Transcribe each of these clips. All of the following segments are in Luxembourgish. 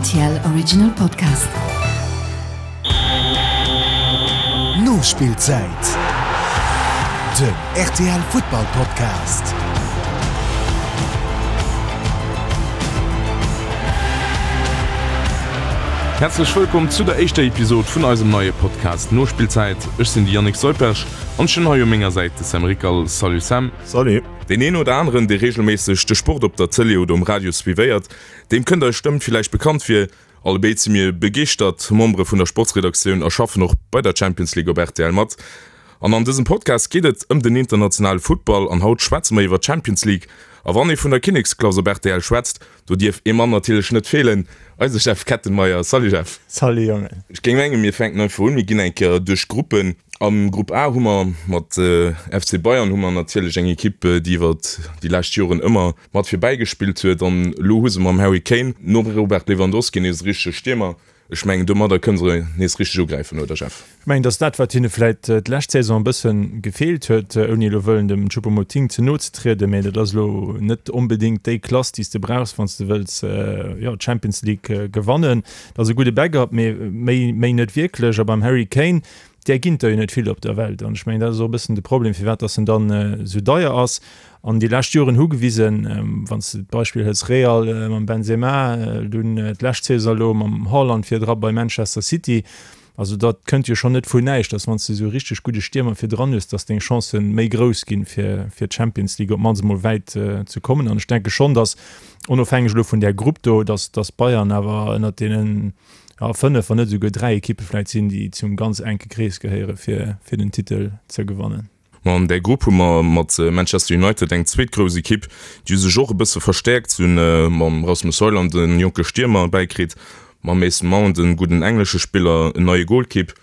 Rtl Original Podcast. Nospillzäit, den rtl Futtball Podcast. Häerzlech wëllkomm zu der éischter Episod vun eisem neie Podcast Nospillzäit. Ech sinn de Yannick Seuperch an ech hunn hei u menger Säit de Sam Rickal. Salut Sam. Salut. Deen een oder aneren, dee reegelméisseg de Sport op der Tëlee oder um Radio suivéiert, deem kënnt eis Stëmm villäicht bekannt vir. Allebéid si mir begeeschtert Membere vun der Sportsredaktioun a schaffen och bei der Champions League op rtl mat. An an dësem Podcast geet et ëm den internationale Futtball an haut schwätze mer iwwer d'Champions League. A wann ee vun der Kinneksklass op rtl schwätzt, Do dierf ee Mann natierlech net feelen, eise Jeff Kettenmeyer. Salut Jeff. Salut Jongen. Ech géing mengen, mir fänken einfach un, mir ginn eng Kéier duerch d'Gruppen. Am Grupp A hu mer mat FC Bayern hu mer natierlech eng Ekipp, déi iwwer déi lescht Joren ëmmer mat virbäi gespillt huet. An elo hu se mam Harry Kane nom Robert Lewandowski nees e richtege Stiermer. Ech mengen, domadder kënne se nees richteg ugräifen, oder Jeff? Ech mengen, dass dat, wat hinne vläit d'lescht Saison e bësse gefeelt huet, ouni elo wëllen dem Choupo-Moting ze no ze trieden, mä dat ass elo net onbedéngt déi Klass, déi s de brauchs, wann s de wëlls, jo, d'Champions League gewannen. Dat ass e gudde Backup, mee méi, méi net wierklech. A beim Harry Kane, där ginn der jo net vill op der Welt. An ech mengen, dat ass och e bëssen de Problem, firwat dass en dann esou deier ass. An déi lescht Joren hu gewisen, wann s de d'Beispill hëls Real mam Benzema, dunn d'lescht Saison elo mam Haaland virdra bei Manchester City, Also dat kënnt jo schonn net vun näischt, dass wann s de esou e richteg gudde Stiermer virdran hues, dass deng Chancen méi grouss ginn, fir fir d'Champions League op d'mannst emol wäit ze kommen. An ech denke schonn, dass, onofhängeg elo vun där Grupp do, dass dass Bayern awer ënnert deenen, ja, 5, wann net esouguer 3 Ekippe vläicht sinn, déi zum ganz enke Krees gehéiere fir fir den Titel ze gewannen. Ma an där Grupp hu mer mat Manchester United eng zweet grouss Ekipp, déi hu sech och e bësse verstäerkt. Se hunn mam Rasmus Højlund e jonke Stiermer bäikritt, mam Mason Mount e gudden englesche Spiller, en neie Golkipp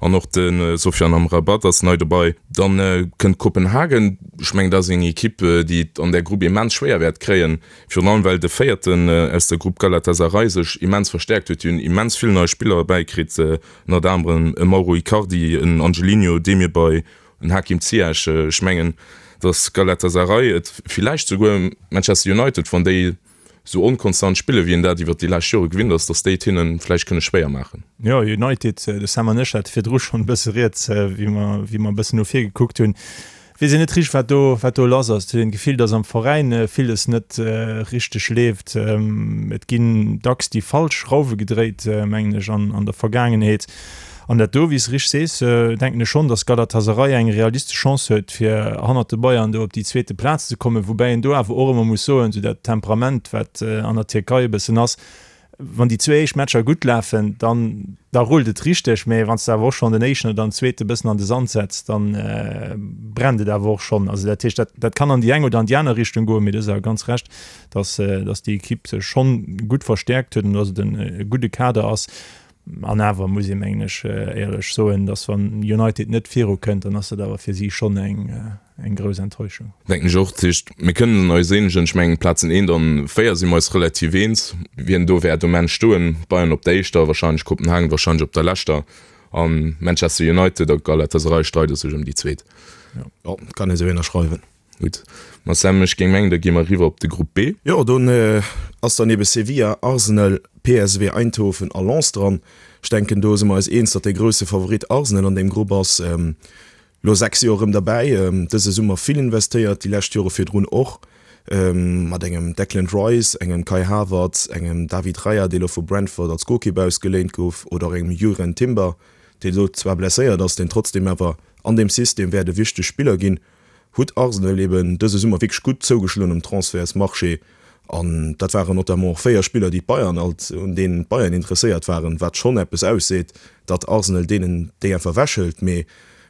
an och de Sofyan Amrabat ass nei dobei. Dann kënnt Kopenhagen, ech mengen dat ass eng Ekipp, déi et an där Grupp immens schwéier wäert kréien, virun allem well de Véierten aus der Grupp Galatasaray sech immens verstäerkt huet. Déi hunn immens vill nei Spiller bäikritt, ënnert anerem e Mauro Icardi, en Angelino Demirbay, En Hakim Ziyech, ech mengen, datt Galatasaray et villäicht souguer Manchester United, wann déi esou onkonstant spillen, wéi een dat iwwer déi lescht Jore gewinnt ass, datt déi et hinne vläicht kënne schwéier maachen. Jo, United, de Sam an ech hate virdru schonn e bësse rieds, wéi mer, wéi mer e bëssen no vir gekuckt hunn. Weess een net richteg, wat do, wat do lass ass. Et huet een d'Gefill, datt am Veräin villes net richteg leeft. Et ginn dacks déi falsch Schrauwe gedréit, mengen ech, an, an der Vergaangenheet. An dat do, wéi s de richteg sees, denken ech schonn, datt Galatasaray eng realistesch Chance huet, fir hannert de Bayern do op déi zweete Plaz ze kommen. Woubäi een do awer och ëmmer muss soen, esou dat Temperament, wat an der Tierkei e bëssen ass, wann déi zwee éischt Matcher gutt lafen, dann da rullt et richteg, mä wann s de awer och schonn den éischten oder den zweete bëssen an de Sand setz, da brennt et awer och schonn. Also dat heescht, dat dat kann an déi eng oder an déi aner Richtung goen, mee du hues awer ganz Recht, datt datt déi Ekipp sech schonn gutt verstäerkt huet an datt et e gudde Kader ass. An awer muss ee mengen ech éierlech soen, datt wann United net viru kënnt, dann ass dat awer fir si schonn eng eng grouss Enttäuschung. Denken ech och. Dat heescht, mir kënnen eis eenegen, ech mengen d'Plazen 1 an 4 si mer eis relativ eens, wien do wäert um Enn stoen. Bayern op der éischter wahrscheinlech, Kopenhagen wahrscheinlech op der leschter a Manchester United a Galatasaray streide sech ëm déi zweet. Jo, kann ee sou ënnerschreiwen. Gutt, ma Sam, ech géing mengen, da gi mer eriwwer op de Grupp B. Jo, do ass dann ebe Sevilla, Arsenal, PSV Eindhoven a Lens dran. Ech denken, do si mer eis eens, datt dee grousse Favorit Arsenal an deem Grupp ass. Lo 6 Joer erëm derbäi, dëse Summer vill investéiert, déi lescht Jore virdrun och, mat engem Declan Rice, engem Kai Havertz, engem David Raya, dee lo vu Brentford als Golkipp ausgeléint gouf, oder och engem Jurrien Timber, dee lo zwar blesséiert ass, deen trotzdeem awer an deem System wäert e wichteg Spiller ginn. hutt Arsenal eben dëse Summer wierklech gutt zougeschloen um Transfertsmarché an dat waren notamment och 4 Spiller, déi d'Bayern alt, un deenen d'Bayern interesséiert waren, wat schonn eppes ausseet, datt Arsenal deenen déi einfach ewechhëlt. Mee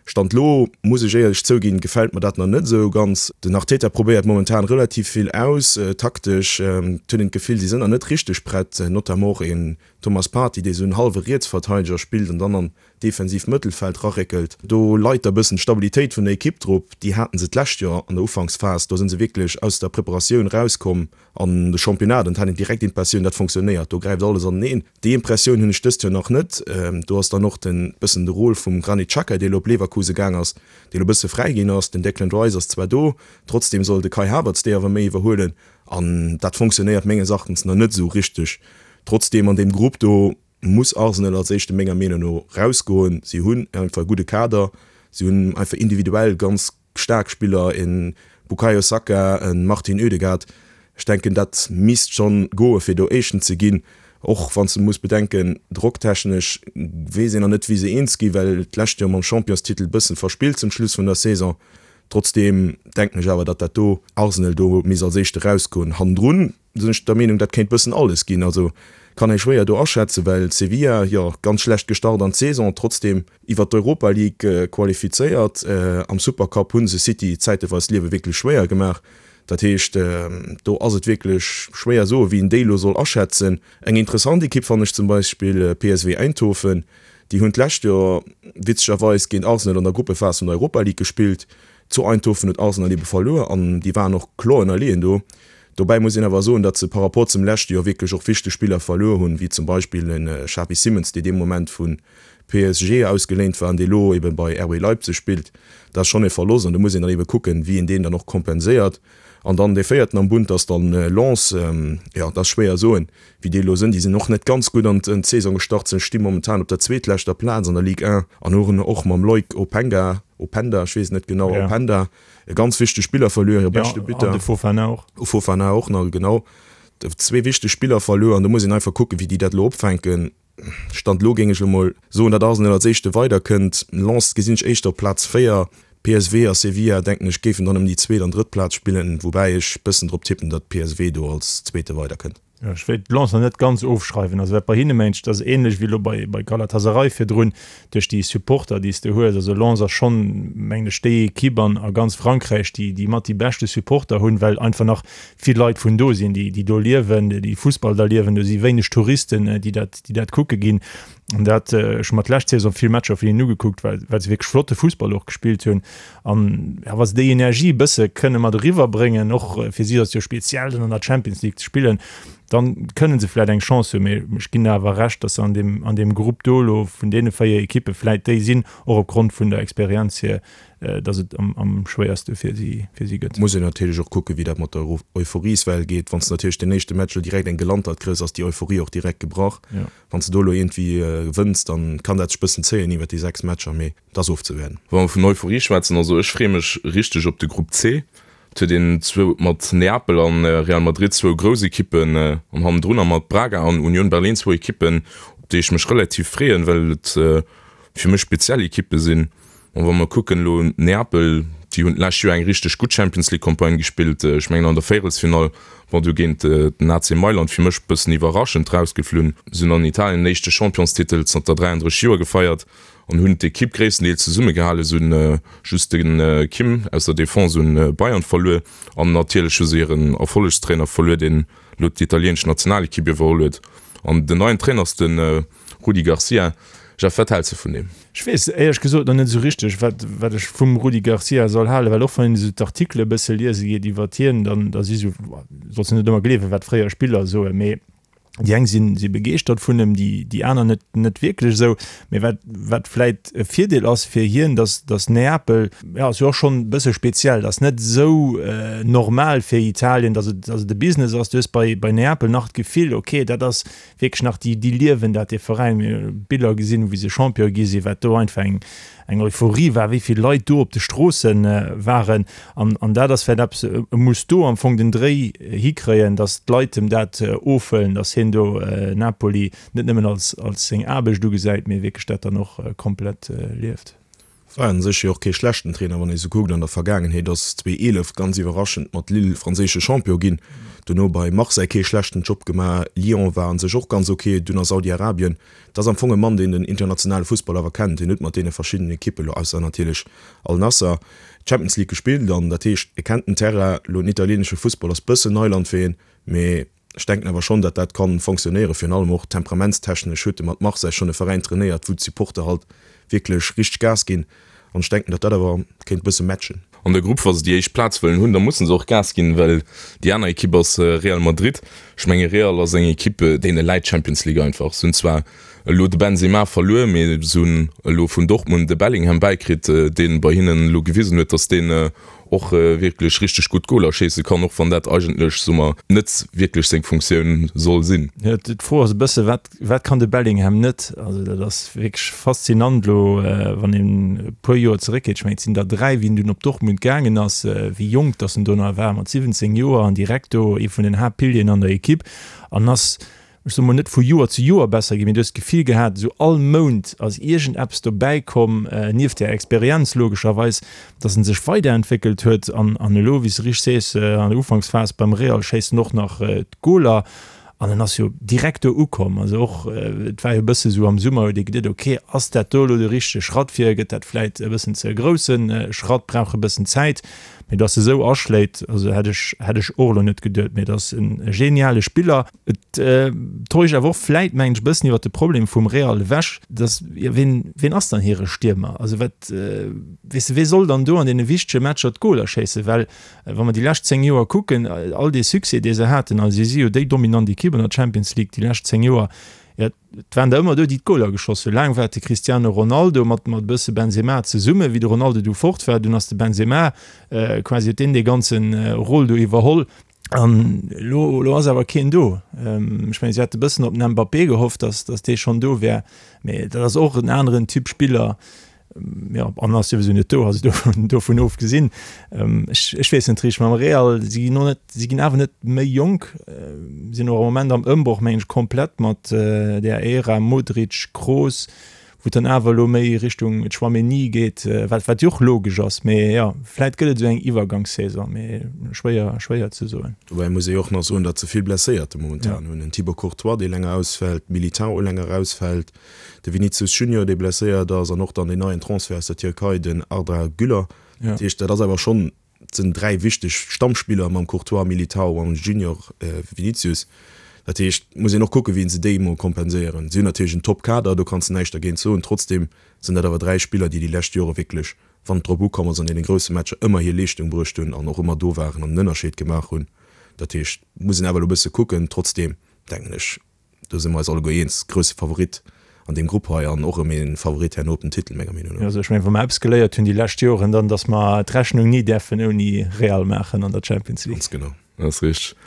Stand lo, muss ech éierlech zouginn, gefält mer dat nach net esou ganz. Den Arteta probéiert momentan relativ vill aus, taktesch. Et huet een d'Gefill, si sinn nach net richteg prett, notamment och een Thomas Partey, dee sou en hallwe Rietsverteideger spillt an dann an defensiivt Mëttelfeld raréckelt. Do leit da bëssen d'Stabilitéit vun der Ekipp drop. Déi haten se d'lescht Joer an der Ufanksphas. Do sinn se wierklech aus der Preparatioun rauskomm an de Championnat an et hat een direkt d'Impressioun, dat fonctionnéiert, do gräift alles aneneen. Déi Impressioun hunn ech dëst Joer nach net. Do ass dann och den bëssen de Rôle vum Granit Xhaka, dee lo op Leverkusen gaang ass, dee lo bësse fräi ginn ass. Den Declan Rice ass zwar do, trotzdeem soll de Kai Havertz déi awer méi iwwerhuelen an dat fonctionnéiert menges Erachtens nach net esou richteg. Trotzdeem an deem Grupp do muss Arsenal als éischte menger Meenung no rausgoen. Si hunn einfach e gudde Kader, si hunn einfach individuell ganz staark Spiller, e Bukayo Saka, e Martin Ødegaard. Ech denken dat misst schonn goe fir do Éischten ze ginn, och wann s de muss bedenken, drocktechnesch weess een nach net wéi se eens gi well d'lescht Joer mam Championstitel bëssen verspillt zum Schluss vun der Saison. Trotzdeem denken ech awer, datt dat do Arsenal do misst als Éischte rausgoen. Hannendrun sinn ech der Meenung, dat kéint bëssen alles ginn. Also kann ee schwéier do aschätzen, well Sevilla, jo, ganz schlecht gestart an d'Saison, trotzdeem iwwer d'Europa League qualifizéiert. Am Supercup hu se City zäiteweis d'Liewe wierklech schwéier gemaach. Dat heescht, do ass et wierklech schwéier soen, wéi een déi elo soll aschätzen. Eng interessant Ekipp fannen ech zum Beispill PSV Eindhoven. Déi hunn d'lescht Joer witzegerweis géint Arsenal an der Gruppephas vun der Europa League gespillt. Zu Eindhoven huet Arsenal ebe verluer an déi waren och kloer ënnerleeën do. Dobäi muss een awer soen, datt se par rapport zum leschte Joer wierklech och wichteg Spiller verluer hunn, wéi zum Beispill de Xavi Simons, dee dee Moment vu PSG ausgeléint war an dee lo ebe bei RB Leipzig spillt. Dat ass schonn e Verlosst an do muss een dann ebe kucken, wéi een deen dann och kompenséiert. An dann dee véierten am Bund ass dann Lens. Jo, dat ass schwéier soen, wéi déi elo sinn. Déi sinn och net ganz gutt an d'Saison gestart, se sti momentan op der zweetleschter Plaz an der Ligue 1 an hunn och mam Loïc Openga, Openda, ech weess et net genau, Openda, e ganz wichtege Spiller verluer, hire beschte Buteur. An de Fofana och. Fofana och nach, genau. Zwee wichteg Spiller verluer an do muss een einfach kucken, wéi déi dat elo opfänken. Stand elo géing ech elo mol soen, datt Arsenal als éischte weiderkënnt. Lens gesinn ech éischter op Plaz 4. PSV a Sevilla, denken ech, géifen dann ëm déi zweet an drëtt Plaz spillen, woubäi ech bëssen drop tippen, datt PSV do als Zweete weiderkënnt. Jo, ech wéilt Lens nach net ganz ofschreiwen. Also wat bei hinne mengt, dat ass ähnlech wéi elo bei bei Galatasaray virdrun, duerch déi Supporter, déi s de hues. Also Lens ass schonn, mengen ech, déi Ekipp an a ganz Frankräich, déi déi mat déi beschte Supporter hunn, well einfach nach vill Leit vun do sinn, déi déi do liewen, déi Fussball da liewen. Do si wéineg Touristen, déi dat déi dat kucke ginn. An dat, ech hu mer d'lescht Saison vill Matcher vun hinnen ugekuckt, well well se wierklech flotte Fussball och gespillt hunn. An ja, wa se déi Energie e bësse kënne mat eriwwer bréngen, och fir si ass et jo speziell dann an der Champions League ze spillen, dann kënne se vläit eng Chance hunn. Mee ech ginn der awer Recht, datt se an deem an deem Grupp do elo vun deene 4 Ekippe vläit déi sinn, och opgrond vun der Experienz hier, datt et am am schwéierste fir si fir si gëtt. Muss een natierlech och kucken, wéi dat mat der Euphorieswell geet. Wann s de natierlech den éischte Match elo direkt eng gelantert kriss, ass déi Euphorie och direkt gebrach. Wann s de do elo iergendwéi gewënns, dann kann dat sech bëssen zéien iwwert déi 6 Matcher, mee et ass ofzewäerden. Wa mer vun Euphorie schwätzen, also ech freeë mech richteg op de Grupp C. Et huet een zwou mat Neapel an Real Madrid zwou grouss Ekippen an hannendrunner mat Braga an Union Berlin zwou Ekippen, op déi ech mech relativ freeën, well et fir mech speziell Ekippe sinn. An wa mer kucken elo Neapel, déi hunn d'lescht Joer eng richteg gutt Champions League Campagne gespillt, ech mengen an der Véierelsfinall, bon du géint den AC Mailand fir mech e bëssen iwwerraschend rausgeflunn. Se hunn an Italien den éischte Championstitel zanter 33 Joer gefeiert an hunn d'Ekipp gréisstendeels zesummegehalen. Se hunn just de Kim aus der Defense un Bayern verluer an natierlech hu se hiren Erfollegstrainer verluer, deen elo d'italieenesch Nationalekipp iwwerholl huet. An den neien Trainer ass de Rudi Garcia. Jeff, wat häls de vun deem? Ech weess éierlech gesot nach net esou richteg, wat, wat ech vum Rudi Garcia soll halen, well och wann een esou d'Artikele e bësse liese geet iwwert hien, dann da si sou, solls de net ëmmer gleewen, wat fréier Spiller soen, mee déi eng sinn, si begeeschtert vun em, déi, déi aner net, net wierklech esou. Mee wat, wat vläit e Virdeel ass fir hien, dass, dass Neapel, jo, ass jo och schonn e bësse speziell, ass net esou normal fir Italien, dass et, dass et e Business ass. Du hues bei, bei Neapel nach d'Gefill, okay, dat ass wierklech nach déi, déi liewen dat, dee Veräin. Mir hu Biller gesinn, wéi se Champion gi sinn, wat do einfach eng, eng Euphorie war, wéi vill Leit do op de Stroosse waren. An, an dat ass vläicht eppes, e muss do am Fong den Dréi hikréien, datt d'Leit em dat ofhuelen, datt hien do Napoli net nëmmen als, als seng Aarbecht ugesäit, mee wierklech dat dann och komplett lieft. War un sech jo och kee schlechten Trainer, wann ee sou kuckt an der Vergaangenheet, ass 2011 ganz iwwerraschend mat Lille franséische Champion ginn, dono bei Marseille kee schlechten Job gemaach, Lyon war un sech och ganz ok, dunn a Saudi-Arabien. Et ass am Fong e Mann, deen den internationale Fussball awer kennt, hien huet mat deene verschiddenen Ekippen, elo ausser natierlech Al Nassr, d'Champions League gespillt an dat heescht, e kennt den Terrain. Elo den italieenesche Fussball ass bëssen Neiland fir hien, mee Ech denken awer schonn, datt dat kann fonctionnéieren. Virun allem och temperamentstechnesch huet e mat Marseille schonn e Veräin trainéiert, wou d'Supporter halt wierklech richteg Gas ginn. An ech denken, datt dat awer kéint e bësse matchen. An der Grupp, wa se déi éischt Plaz wëllen hunn, da musse se och Gas ginn, well déi aner Ekipp ass Real Madrid. Ech menge Real ass eng Ekipp, deene läit d'Champions League einfach. Se hunn zwar elo de Benzema verluer, mee se hunn elo vun Dortmund de Bellingham bäikritt, dee bei hinnen elo gewisen huet, datt deen. och wierklech richteg gutt Goler schéisse kann, och wann dat eigentlech, soe mer, net wierklech seng Funktioun soll sinn. Jo, d'Fro ass e bësse, wat, wat kann de Bellingham net? Also dat ass wierklech faszinant elo, wann een e puer Joer zeréckgeet, ech mengen et sinn der 3, wéi en dunn op Dortmund gaangen ass, wéi jonk datt en do nach war, mat 17 Joer an direkt do ee vun den Haaptpilieren an der Ekipp an ass ech soe mol, net vu Joer zu Joer besser ginn, mee du hues d'Gefill gehat, esou all Mount ass iergendeppes dobäi komm, nieft där Experienz logescherweis, dass en sech weiderentwéckelt huet. An, an elo, wéi s de richteg sees, an der Ufanksphas beim Real schéisst en och nach d'Goler an en ass jo direkt do ukomm. Also och, et war jo e bësse sou am Summer, huet ee geduet, ok, ass dat do elo de richtege Schratt fir, gëtt dat vläit e bëssen ze e grousse Schratt, brauch e bëssen Zäit. Mee dass e sou aschléit, also hätt ech, hätt ech och elo net geduet. Mee et ass en geniale Spiller. Et täuscht awer och vläit, mengen ech, e bëssen iwwert de Problem vum Real ewech, dass, jo, ween, ween ass dann hire Stiermer? Also wat, weess de, wee soll dann do an deene wichtege Matcher d'Goler schéissen? Well wa mer déi lescht 10 Joer kucken, all dee Succès, dee se haten, also si si jo déi dominant Ekipp an der Champions League déi lescht 10 Joer, jo, et waren der ëmmer do, déi d'Goler geschoss hunn. Laang war et de Cristiano Ronaldo mat, mat e bësse Benzema zesummen. Wéi de Ronaldo du fort war, dunn ass de Benzema quasi, huet deen dee ganze Rôle do iwwerholl. An elo, elo ass awer keen do. Ech mengen, si hate bëssen op den Mbappé gehofft, datt, datt dee schonn do wär, mee dat ass och en aneren Typ Spiller. Jo, an ass souwisou net do, also dovun, dovun ofgesinn. Ech, ech weess net richteg, mam Real, si ginn och net, si ginn awer net méi jonk, sinn och am Moment am Ëmbroch, mengen ech, komplett mat där Ära Modric, Kroos. wou et dann awer elo méi Richtung Tchouaméni geet, wat wat jo och logesch ass, mee jo, vläit gëtt et esou eng Iwwergangssaison, mee schwéier schwéier ze soen. Dobäi muss ee jo och nach soen, datt se vill Blesséierte momentan hunn, en Thibaut Courtois, dee länger ausfält, Militão länger ausfält, de Vinicius Junior, dee blesséiert ass an och dann deen neien Transfert aus der Tierkei, den Arda Güler. Dat heescht, dat ass awer schonn Et sinn 3 wichteg Stammspiller mam Courtois, Militao an Junior Vinicius. Dat heescht, muss een och kucken, wéi se déi emol kompenséieren. Si hunn natierlech en Top-Kader, do kanns de näischt dergéint soen. Trotzdeem sinn dat awer 3 Spiller, déi déi lescht Jore wierklech, wann et drop ukomm ass, an deene grousse Matcher ëmmer hir Leeschtung bruecht hunn an och ëmmer do waren an den Ënnerscheed gemaach hunn. Dat heescht, muss een awer elo e bësse kucken. Trotzdeem denken ech, Do si mer eis alleguer eens, grousse Favorit an deem Grupp hei an och erëm ee Favorit herno op den Titel, menger Meenung no. Also ech mengen, wa mer eppes geléiert hunn déi lescht Joren, dann datt mer d'Rechnung ni däerfen ouni Real maachen an der Champions League. Ganz genau. Dat ass richteg.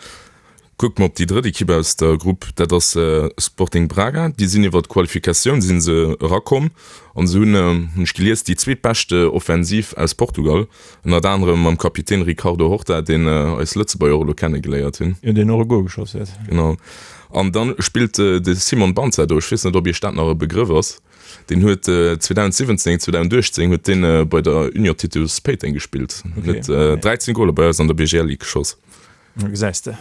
Kucke mer op déi drëtt Ekipp aus der Grupp, dat ass Sporting Braga. Déi sinn iwwer d'Qualifikatioun si se erakomm an se hunn, hunn ech gelies, déi zweetbeschte Offensiv aus Portugal. Ënnert anerem mam Kapitän Ricardo Horta, deen eis Lëtzebuerger och elo kenne geléiert hunn. Jo, deen och e Gol geschoss huet. Genau. An dann spillt de Simon Banza do. Ech weess net, ob iech dat nach e Begrëff ass. Deen huet 2017, 2018 huet deen bei der Union Titus Péiteng gespillt. Huet 13 Goler bei eis an der BGL Ligue geschoss. Da gesäis de.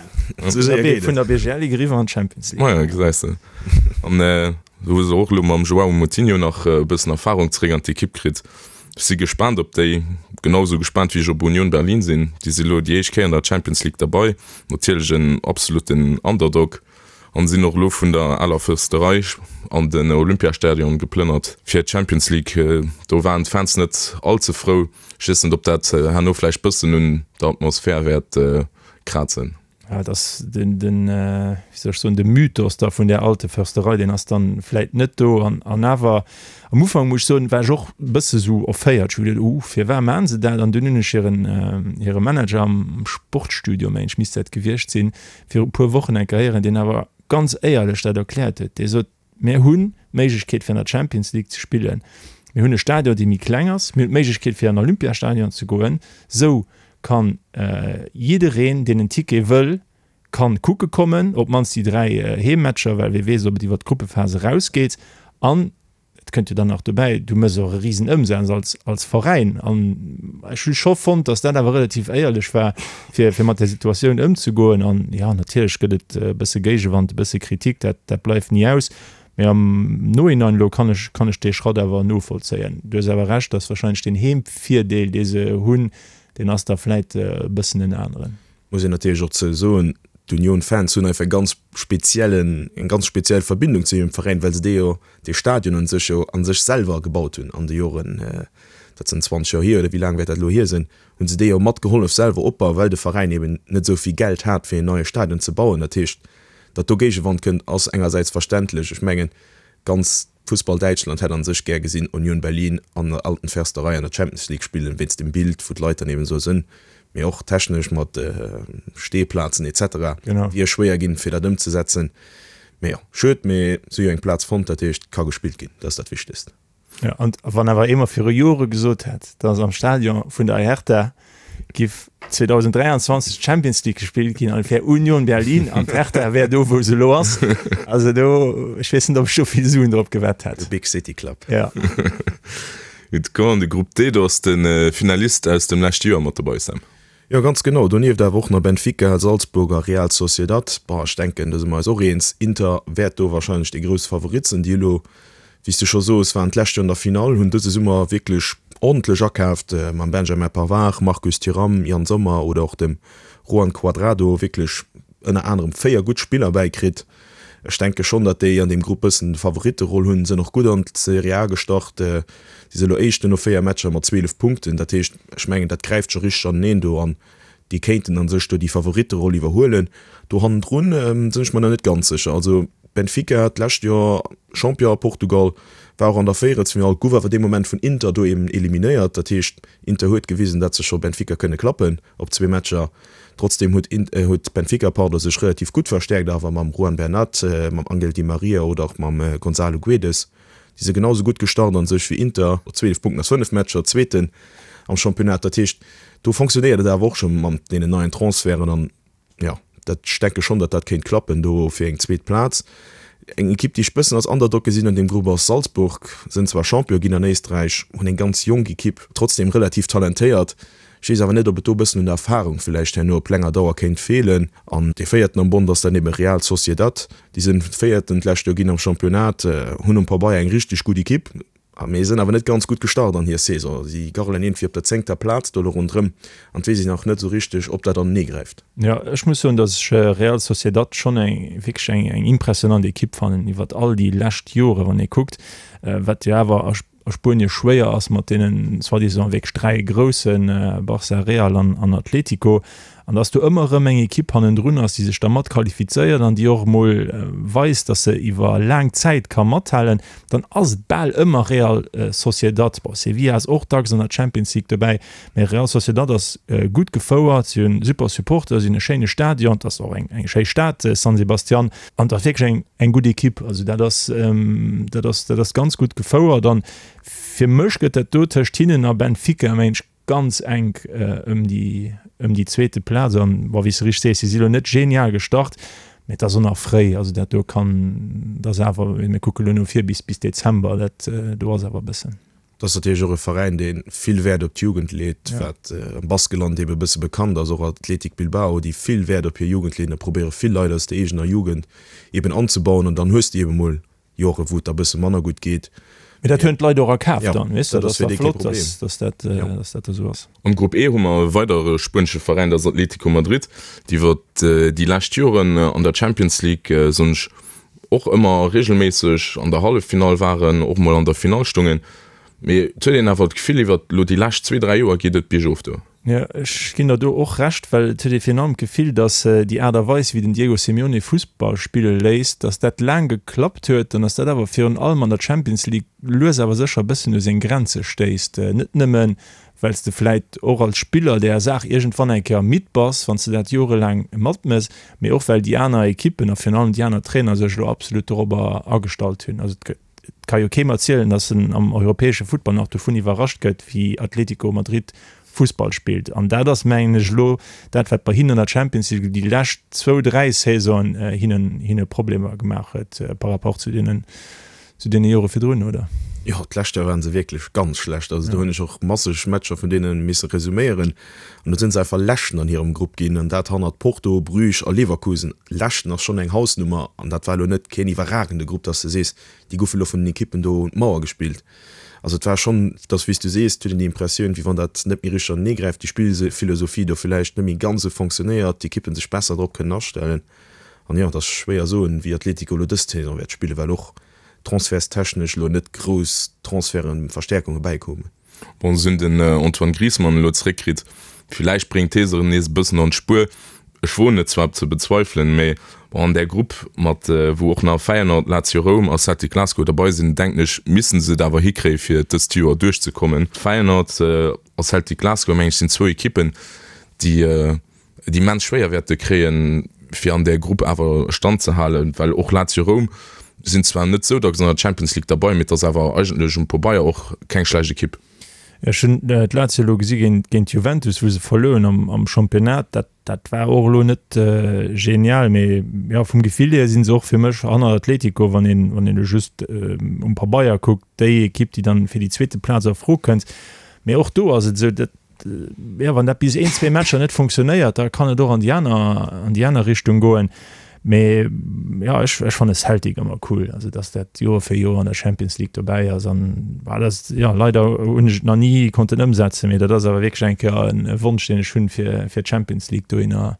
Sou séier geet et. Vun der BGL Ligue eriwwer an d'Champions League. Maja, gesäis de. An do hu se och elo mam Joao Moutinho nach e bëssen Erfarung zeréck an d'Ekipp kritt. Ech si gespaant op déi, genau esou gespaant wéi ech op Union Berlin sinn. Déi si elo déi éischt Kéier an der Champions League derbei, natierlech en absolutten Underdog an sinn och elo vun der aler Fërsterei an den Olympiastadion geplënnert fir d'Champions League. Do waren d'Fans net all ze frou. Ech weess net, ob dat herno vläicht bëssen un der Atmosphär wäert krazen. Ja, et ass den, den, wéi soll ech soen, de Mythos da vun där Alte Försterei, deen ass dann vläit net do. An, an awer, am Ufank muss ech soen, war ech och e bësse sou erféiert. Ech hu geduet, Uh, firwat maachen se dat? An dunn hunn ech hiren, hire Manager am Sportstudio, mengen ech, misst dat gewiescht sinn, viru e puer Wochen eng Kéier héieren, deen awer ganz éierlech dat erkläert huet. Dee sot, Mir hunn d'Méiglechkeet fir an der Champions League ze spillen. Mir hunn e Stadion dee méi kleng ass. Mir hunn d'Méiglechkeet fir an Olympiastadion ze goen. Sou kann jiddereen deen en Ticket wëll kann kucke kommen, op d'mannst déi 3 Heemmatcher, well wie weess ob et iwwer d'Gruppephas erausgeet. An et kënnt jo dann nach dobäi, du méchs och e risen Ëmsaz als als Veräin. An ech hu scho fonnt, datt dat awer relativ éierlech war, fir fir mat där Situatioun ëmzegoen. An jo, natierlech gëtt et e bësse Géigewand, e bësse Kritik, dat dat bleift ni aus. Mee am Nohinein elo kann ech kann ech dee Schratt awer novollzéien. Du hues awer Recht, datt wahrscheinlech deen Heemvirdeel, dee se hunn, deen ass da vläit e bëssen en aneren. Muss een natierlech och zou soen, d'Union-Fans hunn einfach e ganz speziellen, eng ganz speziell Verbindung zu hirem Veräin, well se dee jo, dee Stadion un sech jo a sech selwer gebaut hunn an de Joren, dat sinn 20 Joer hier oder wéi laang wäert dat elo hier sinn, hunn se dee jo mat gehollef selwer opbauen, well de Veräin eben net esou vill Geld hat, fir een neie Stadion ze bauen. Dat heescht, datt do Géigewand kënnt, ass engersäits verständlech. Ech mengen, ganz. Fussball Däitschland hätt an sech gär gesinn Union Berlin an der Alten Försterei an der Champions League spillen, wéinst dem Bild wou d'Leit dann eben esou sënn, mee och technesch mat Stehplazen etc. Wier schwéier ginn fir dat ëmzesetzen. Mee jo, schued, mee se hu jo eng Plaz fonnt, dat heescht et ka gespillt ginn, dat ass dat Wichtegst. Jo, an wann awer ee mer viru Jore gesot hätt, datt am Stadion vun der Hertha giff 2023 d'Champions League gespillt ginn an et wär Union Berlin an d'Hertha wär do wou se elo ass, also do, ech weess net ob ech do vill Suen drop gewett hätt. The Big City Club. Ja. Gutt, komm an de Grupp D, do ass de Finalist aus dem leschte Joer mat dobei, Sam. Jo, ganz genau. Donieft awer och nach Benfica, Salzburg a Real Sociedad. Bon, ech denken, do si mer eis och eens, Inter wäert do warscheinlech dee grousse Favorit sinn. Déi elo, wéi s de scho soos, waren d'lescht Joer an der Finall, hunn dëse Summer wierklech ordentlech akaaft mam Benjamin Pavard, Marcus Thuram, Yann Sommer oder och dem Juan Cuadrado wierklech ënner anerem 4 gutt Spiller bäikritt. Ech denke schonn, datt déi an deem Grupp bëssen Favoritteroll hunn. Sënn och gutt an d'Serie A gestart. Si si elo Éischten no 4 Matcher mat 12 Punkten. Dat heescht, ech mengen, dat gräift scho richteg aneneen do an déi kéinten a sech do déi Favoritteroll iwwerhuelen. Do hannendrun sinn ech mer nach net ganz sécher. Also Benfica, d'lescht Joer Champion a Portugal, war och an der Véierelsfinall, gouf awer dee Moment vun Inter do eben eliminéiert. Dat heescht, Inter huet gewisen, datt se scho Benfica kënne klappen op zwee Matcher. Trotzdem huet huet Benfica pardon sech relativ gutt verstäerkt awer mam Juan Bernat, mam Angel Di Maria oder och mam Gonzalo Guedes. Déi si genau sou gutt gestart an sech wéi Inter, 12 Punkten aus 5 Matcher, Zweeten am Championnat. Dat heescht do fonctionnéiert et awer och scho mam deenen neien Transferten an jo, dat ech denke schonn, datt dat kéint klappen do fir eng zweet Plaz. Eng Ekipp déi ech bëssen als Underdog gesinn an deem Grupp ass Salzburg. Sënn zwar Champion ginn an Éisträich, hunn eng ganz jonk Ekipp, trotzdem relativ talentéiert. Ech weess awer net, ob et do e bëssen un der Erfarung villäicht herno op länger Dauer kéint feelen. An dee Véierten am Bond ass dann ebe Real Sociedad. Déi sinn Véierten d'lescht Joer ginn am Championnat, hunn um Pabeier eng richteg gutt Ekipp, mee sinn awer net ganz gutt gestart an hir Saison. Si garrelen iergendwéi op der zéngter Plaz do elo ronderëm an et weess een nach net esou richteg, ob dat anenee gräift. Jo, ech muss soen, datt ech Real Sociedad schonn eng wierklech eng eng impressionant Ekipp fannen iwwert all déi lescht Jore wann ee kuckt, wat jo awer a a Spuenie schwéier ass mat deenen soi-disant wierklech 3 groussen, Barça, Real an an Atlético, an dass do ëmmer erëm eng Ekipp hannendrun ass, déi sech da mat qualifizéiert an déi och emol weist, dass se iwwer laang Zäit ka mathalen, dann ass et bal ëmmer Real Sociedad. Bon, Sevilla ass och dacks an der Champions League dobäi, mä Real Sociedad ass gutt gefouert, si hunn super Supporter, si hunn e schéine Stadion, et ass och eng eng schéi Stad, San Sebastian. An et ass wierklech eng, eng gutt Ekipp. Also dat ass, dat ass, dat ass ganz gutt gefouert. An fir mech gëtt dat do tëscht hinnen a Benfica, mengen ech, ganz enk ëm déi, ëm déi zweete Plaz. An, bon, wéi s de richteg sees, si si lo net genial gestart, mä et ass och nach fréi. Also dat do kann, dat ass awer, mir kucke lo no vir bis, bis Dezember, dat do ass awer e bëssen. Dat ass natierlech och e Veräin, dee vill Wäert op d'Jugend leet, wat am Baskeland eebe e bësse bekannt ass, och Athletic Bilbao, déi vill Wäert op hir Jugend leeën a probéiere vill Leit aus der eegener Jugend eeben anzebauen. An dann hues de eebe mol Jore wou et da bësse manner gutt geet. Mee dat hunn d'Leit och a Kaf dann, weess de. Dat ass da flott, dass dat esou ass. Am Grupp E hu mer e weidere spuenesche Veräin, dat ass Atlético Madrid, déi iwwer déi lescht Joren an der Champions League, soen ech, och ëmmer regelméisseg an der Halleffinall waren, och mol an der Finall stungen. Mee et huet een awer d'Gefill, iwwert elo déi lescht zwee, dräi Joer geet et biergof do. Jo, ech ginn der do och Recht, well et huet ee virun allem d'Gefill, datt déi Aart a Weis, wéi den Diego Simeone Fussball spille léisst, datt dat laang geklappt huet an datt dat awer virun allem an der Champions League lues awer sécher e bëssen u seng Grenze stéisst. Net nëmmen, well s de vläit och als Spiller där Saach iergendwann eng Kéier midd bass, wann s de dat jorelaang matmëss, mee och well déi aner Ekippen a virun allem déi aner Trainer sech elo absolut dorobber agestallt hunn. Also et ka jo keem erzielen, datt en am europäesche Futtball nach dovun iwwerrascht gëtt, wéi Atlético Madrid Fussball spillt. An dat ass, mengen ech, elo dat, wat bei hinnen an der Champions League déi lescht zwou, dräi Saisonen hinnen hinne Problemer gemaach huet par rapport zu deenen Zu deene Jore virdrun, oder? Jo, d'lescht Joer waren se wierklech ganz schlecht. Also do hunn ech och masseg Matcher vun deene misse resuméieren. An do sinn se einfach Leschten an hirem Grupp ginn, an dat hannert Porto, Bruges a Leverkusen. Leschten ass schonn eng Hausnummer, an dat war elo net keen iwwerragende Grupp, dass de sees, déi goufe elo vun den Ekippen do un d'Mauer gespillt. Also et war schonn, dass wéi s du sees, et huet een déi Impressioun, wéi wann dat net méi richteg anenee gräift, déi Spillphilosophie do villäicht net méi ganz esou fonctionnéiert, d'Ekippen sech besser drop kënnen astellen. An jo, et ass schwéier soen, wéi Atletico elo dës Saison wäert spillen, well och transferstechnesch elo net grouss Transferten, Verstäerkunge bäikoumen. Bon, se hunn den Antoine Griezmann elo zeréckkritt, villäicht bréngt hee se erëm nees e bëssen an d'Spuer. Ech woen et zwar ze bezweifelen, mee bon, an där Grupp mat wou och nach Feyenoord, Lazio Roum a Celtic Glasgow derbei sinn, denken ech, missten se et awer hikréie fir dëst Joer duerchzekommen. Feyenoord a Celtic Glasgow, meng ech, sinn zwou Ekippen, déi et immens schwéier wäerte kréien, fir an där Grupp awer Stand ze halen, well och Lazio Roum sinn zwar net sou dacks an der Champions League derbei, mee et ass awer eigentlech um Pobeier och keng schlecht Ekipp. Ech hunn d'Lazio elo gesi géint Juventus, wou se verluer hunn am Championnat. Dat, dat war och elo net genial, mee jo, vum Gefill hier si se och fir mech hanner Atletico, wann een, wann een elo just um Pabeier kuckt, déi Ekipp, déi dann fir déi zweete Plaz a Fro kënnt. Mee och do ass et esou, dat, jo, wann dat bis een, zwee Matcher net funktionéiert, da kann et och an déi aner, an déi aner Richtung goen. Mee jo, ech, ech fanne Celtic ëmmer cool, also datt dat Joer fir Joer an der Champions League dobäi ass an bah, dat ass, jo, leider hunn ech et nach ni konnten ëmsetzen, mee dat ass awer wierklech eng Kéier en Wonsch, deen ech hunn, fir, fir d'Champions League dohinner,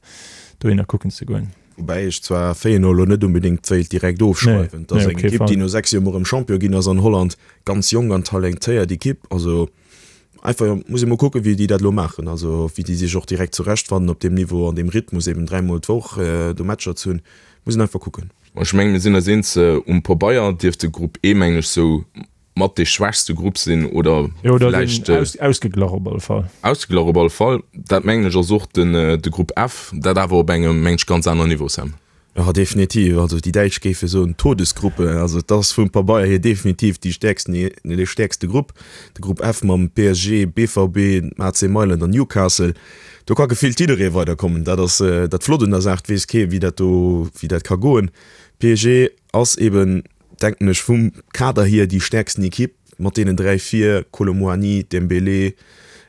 dohinner kucken ze goen. Woubäi ech zwar Feyenoord elo net unbedéngt wéilt direkt ofschreiwen. Et ass eng Ekipp, déi no 6 Joer mol erëm Champion ginn ass an Holland, ganz jonk an talentéiert Ekipp, also Einfach muss ee mol kucken, wéi déi dat elo maachen, also wéi déi sech och direkt zurechtfannen op deem Niveau, an deem Rhythmus, eben dräimol d'Woch do Matcher ze hunn. Muss een einfach kucken. Ech mengen, mir sinn eis eens, um Pabeier dierft de Grupp E, mengen ech, sou mat dee schwächste Grupp sinn oder vläicht. Ausgeglach op alle Fall. Ausgeglach op alle Fall. Dat mengen ech ass och den de Grupp F, dat awer op engem, mengen ech, ganz aneren Niveau, Sam. Jo, definitiv. Also déi Däitsch géife soen Todesgruppe. Also et ass vum Pabeier hier definitiv déi stäerksten, dee stäerkste Grupp. De Grupp F mam PSG, BVB, dem AC Mailand an Newcastle. Do ka gefillt jidderee weiderkommen. Dat ass dat Flott un der Saach. Et weess kee wéi dat do, wéi dat ka goen. PSG ass eben, denken ech, vum Kader hier déi stäerksten Ekipp mat deenen 3 vir, Kolo Muani, Dembélé,